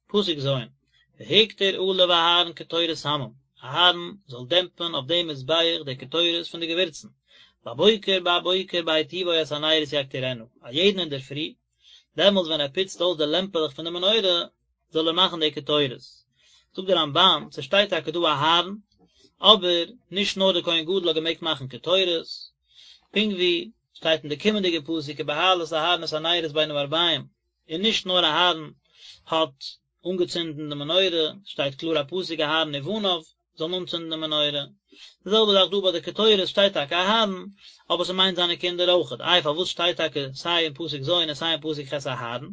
פסוק ז', והקטיר עליו אהרן קטורת סמים, אהרן זאל דעמפן אויף דעם מזבח די קטורת פון די געווירצן, בבוקר בבוקר בהיטיבו את הנרות יקטירנה, א יעדן אינדערפרי, דעמאלס ווען ער פוצט אויס די לעמפעלעך פון די מנורה, זאל ער מאכן די קטורת. זאגט דער רמב"ן, ס'שטייט טאקע דא אהרן, אבער נישט נאר דער כהן גדול האט געמעגט מאכן קטורת, פונקט ווי שטייט אין די קומענדיגע פסוק ובהעלת אהרן את הנרות בין הערבים, און נישט נאר אהרן האט אנגעצינדן די מנורה, שטייט קלאר א פסוק אהרן ובניו זאלן אנצינדן די מנורה, די זעלבע זאך דא ביי די קטורת שטייט טאקע אהרן, אבער ס'מיינט זיינע קינדער אויכעט, איי פארוואס שטייט טאקע סיי אין פסוק ז' און סיי אין פסוק ח' אהרן,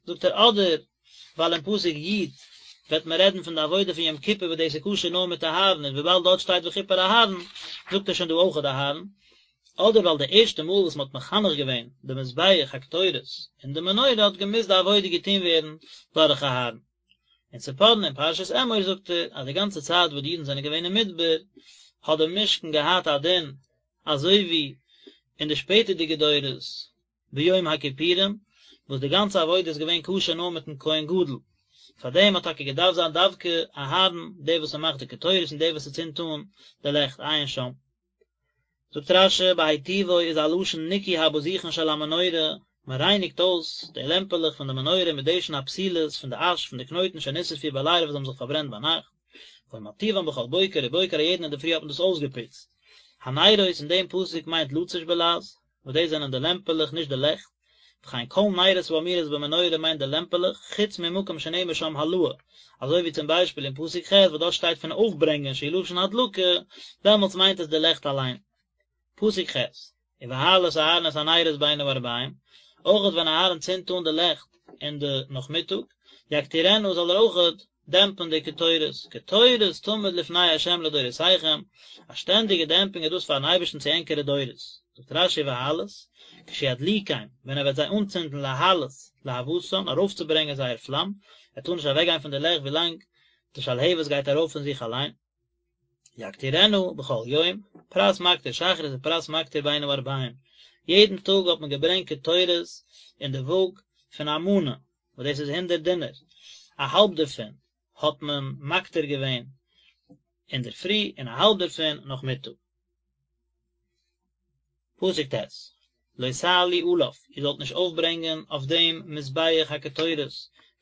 זאגט ער אדער ווייל אין פסוק י' וועט מען רעדן פון די עבודה פון יום כיפור וואס דאס איז כשר נאר מיט אהרן און וויבאלד דארט שטייט וכפר אהרן זאגט ער שוין דא אויכעט אהרן, אדער ווייל די ערשטע מאל וואס מען האט מחנך געווען די מזבח הקטורת און די מנורה האט געמוזט די עבודה געטון ווערן דורך אהרן. אין ספורנו אין פרשת אמור זאגט ער אז די גאנצע צייט וואס די אידן זענען געווען אין מדבר האט די משכן געהאט א דין אזוי ווי אין די שפעטערדיגע דורות ביום הכיפורים וואס די גאנצע עבודה איז געווען כשר נאר מיטן כהן גדול, פאר דעם האט טאקע געדארפט זיין דווקא אהרן דער וואס ער מאכט די קטורת און דער וואס ער צינדט אן די לעכט, עיין שם. זאגט רש"י בהיטיבו איז א לשון ניקוי הבזיכין של המנורה, מען רייניגט אויס די לעמפעלעך פון די מנורה מדשן הפתילות פון די אש פון די קנויטן שנשרפו בלילה וואס האבן זיך פארברענט ביינאכט, והיה מטיבן בכל בוקר ובוקר א יעדן אינדערפרי האט מען דאס אויסגעפוצט. הנרות אין דעם פסוק מיינט לצי"ש בלע"ז, וואס דאס זענען די לעמפעלעך נישט די לעכט. וכן כל נרות האמורות במנורה מיינט די לעמפעלעך, חוץ ממקום שנאמר שם העלאה, אזוי ווי צום ביישפיל אין פסוק ח' וואס דארט שטייט פון אויפברענגען שהוא לשון הדלקה, דעמאלטס מיינט עס די לעכט אליין. פסוק ח', ובהעלת אהרן את הנרות בין הערבים, אויכעט ווען אהרן צינדט אן די לעכט אין די נאכמיטאג, יקטירנה זאל ער אויכעט דעמפן די קטורת, קטורת תמיד לפני ה' לדורותיכם, א שטענדיגע דעמפינג איז דאס פארן אייבערשטן צו ענקערע דורות. זאגט רש"י ובהעלת, כשידליקם, ווען ער וועט זיי אנצינדן להעלות להבתן, ארויפצוברענגען זייער פלאם, ער טאר נישט אוועקגיין פון די לעכט ווילאנג די שלהבת גייט ארויף פון זיך אליין. יקטירנה בכל יום, פרס מקטיר שחרית ופרס מקטיר בין הערבים, יעדן טאג האט מען געברענגט קטורת אין די וואג פון א מנה, וואס דאס איז הונדערט דינר, א האלב דערפון האט מען מקטיר געווען אינדערפרי און א האלב דערפון נאכמיטאג. פסוק ט', לא תעלו עליו, איר זאלט נישט אויפברענגען אויף דעם מזבח הקטורת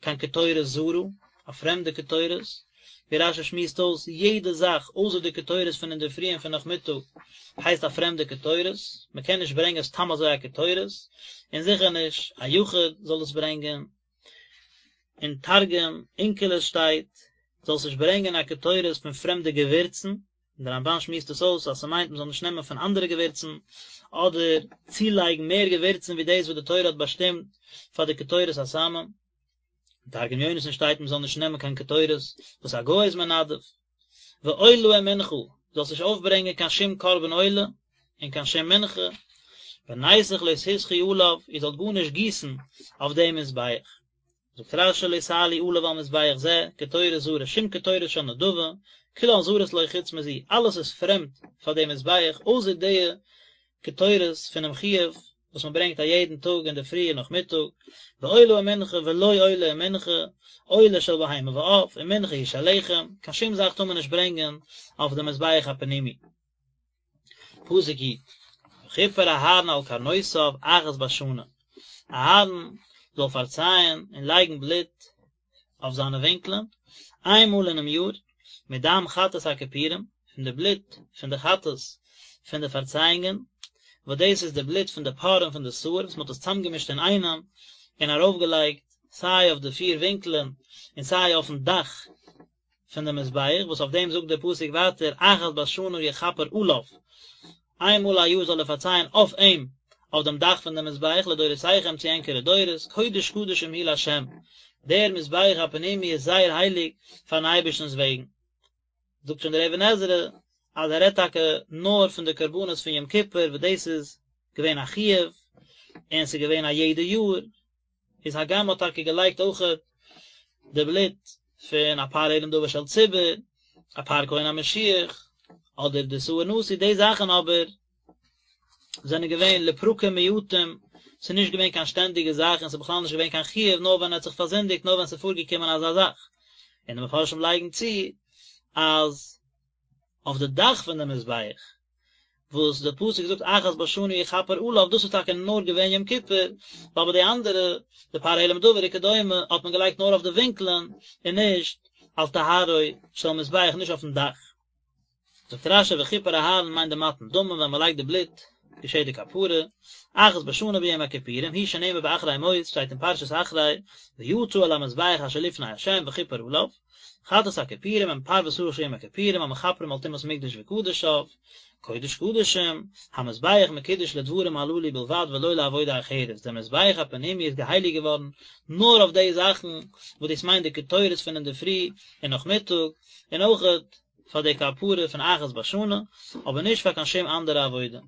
קיין קטורת זרה, א פרעמדע קטורת, ווי רש"י שמועסט אויס, יעדע זאך אויסער די קטורת פון אינדערפרי און פון נאכמיטאג הייסט א פרעמדע קטורת, מען קען נישט ברענגען סתם אזוי א קטורת, און זיכער נישט א יחיד זאל עס ברענגען. אין תרגום אונקלוס שטייט, זאלסט נישט ברענגען א קטורת פון פרעמדע געווירצן, און דער רמב"ן שמועסט עס אויס אז ס'מיינט מ'זאל נישט נעמען פון אנדערע געווירצן, אדער צולייגן מער געווירצן ווי דאס וואס די תורה האט באשטימט פאר די קטורת הסמים. אין תרגום יונתן שטייט מ'זאל נישט נעמען קיין קטורת וואס א גוי איז מנדב. ועולה ומנחה, זאלסט נישט אויפברענגען קיין שום קרבן עולה און קיין שום מנחה, ונסך לא תסכו עליו, איר זאלט גארנישט גיסן אויף דעם מזבח. זאגט רש"י לא תעלו עליו על מזבח זה, קטורת זרה, שום קטורת של נדבה, כולן זרות לו חוץ מזו, אלעס איז פרעמד פאר דעם מזבח, אויסער די קטורת פונעם חיוב וואס מען ברענגט א יעדן טאג אינדערפרי און נאכמיטאג, ועולה ומנחה ולא עולה ומנחה, עולה של בהמה ועוף, ומנחה היא של לחם, קיין שום זאך טאר מען נישט ברענגען אויף דעם מזבח הפנימי. פסוק י', וכפר אהרן על קרנותיו אחת בשנה, אהרן זאל פארצייען און לייגן בלוט אויף זיינע ווינקלען איין מאל אינעם יאר, מדם חטאת הכפורים, פון די בלוט פון די חטאת פון די פארצייאונגען, וואס דאס איז די בלוט פון די פר און פון די שעיר וואס מען האט עס צאמגעמישט אינאיינעם און ארויפגעלייגט סיי אויף די פיר ווינקלען און סיי אויפן דאך פון די מזבח, וואס אויף דעם זאגט דער פסוק ווייטער אחת בשנה יכפר עליו, איין מאל א יאר זאל ער פארצייען אויף אים, אויף דעם דאך פון דעם מזבח, לדורותיכם צו ענקערע דורות, קודש קדשים הוא לה', דער מזבח הפנימי איז זייער הייליג פארן אייבערשטנ'ס וועגן. זאגט שוין דער אבן עזרא אז ער רעדט טאקע נאר פון די קרבנות פון יום כיפור וואס דאס איז געווען א חיוב און ס'איז געווען א יעדע יאר, איז הגם מ'האט טאקע געלייגט אויכעט די בלוט פון א פר העלם דבר של ציבור, א פר כהן המשיח, אדער די שעיר נשיא, די זאכן אבער זענען געווען לפרקים מועטים, ס'איז נישט געווען קיין שטענדיגע זאך און ס'איז בכלל נישט געווען קיין חיוב נאר ווען ער האט זיך פארזינדיגט נאר ווען ס'איז פארגעקומען אזא זאך. און די מפרשים לייגן צו אז אויף די דאך פון די מזבח וואס די פסוק זאגט אחת בשנה יכפר עליו, דאס איז טאקע נאר געווען יום כיפור, ווייל ביי די אנדערע, די פר העלם דבר וכדומה, האט מען געלייגט נאר אויף די ווינקלען, און נישט על טהרו של מזבח, נישט אויפן דאך. זאגט רש"י וכפר אהרן מיינט די מתן דמים ווען מען לייגט די בלוט געשעט די כפרה, אחת בשנה ביום הכיפורים, הוא שנאמר באחרי מות, שטייט אין פרשת אחרי, ויצא אל המזבח אשר לפני ה' וכפר עליו, חטאת הכיפורים הם פר ושעיר של יום הכיפורים המכפרים על טומאת מקדש וקדשיו, קודש קדשים, המזבח מקודש לדברים הללו בלבד ולא לעבודה אחרת, דער מזבח הפנימי איז געהייליגט געווארן נאר אויף די זאכן וואס דאס מיינט די קטורת פון אינדערפרי און נאכמיטאג, און אויכעט פאר די כפרה פון אחת בשנה, אבער נישט פאר קיין שום אנדערע עבודה.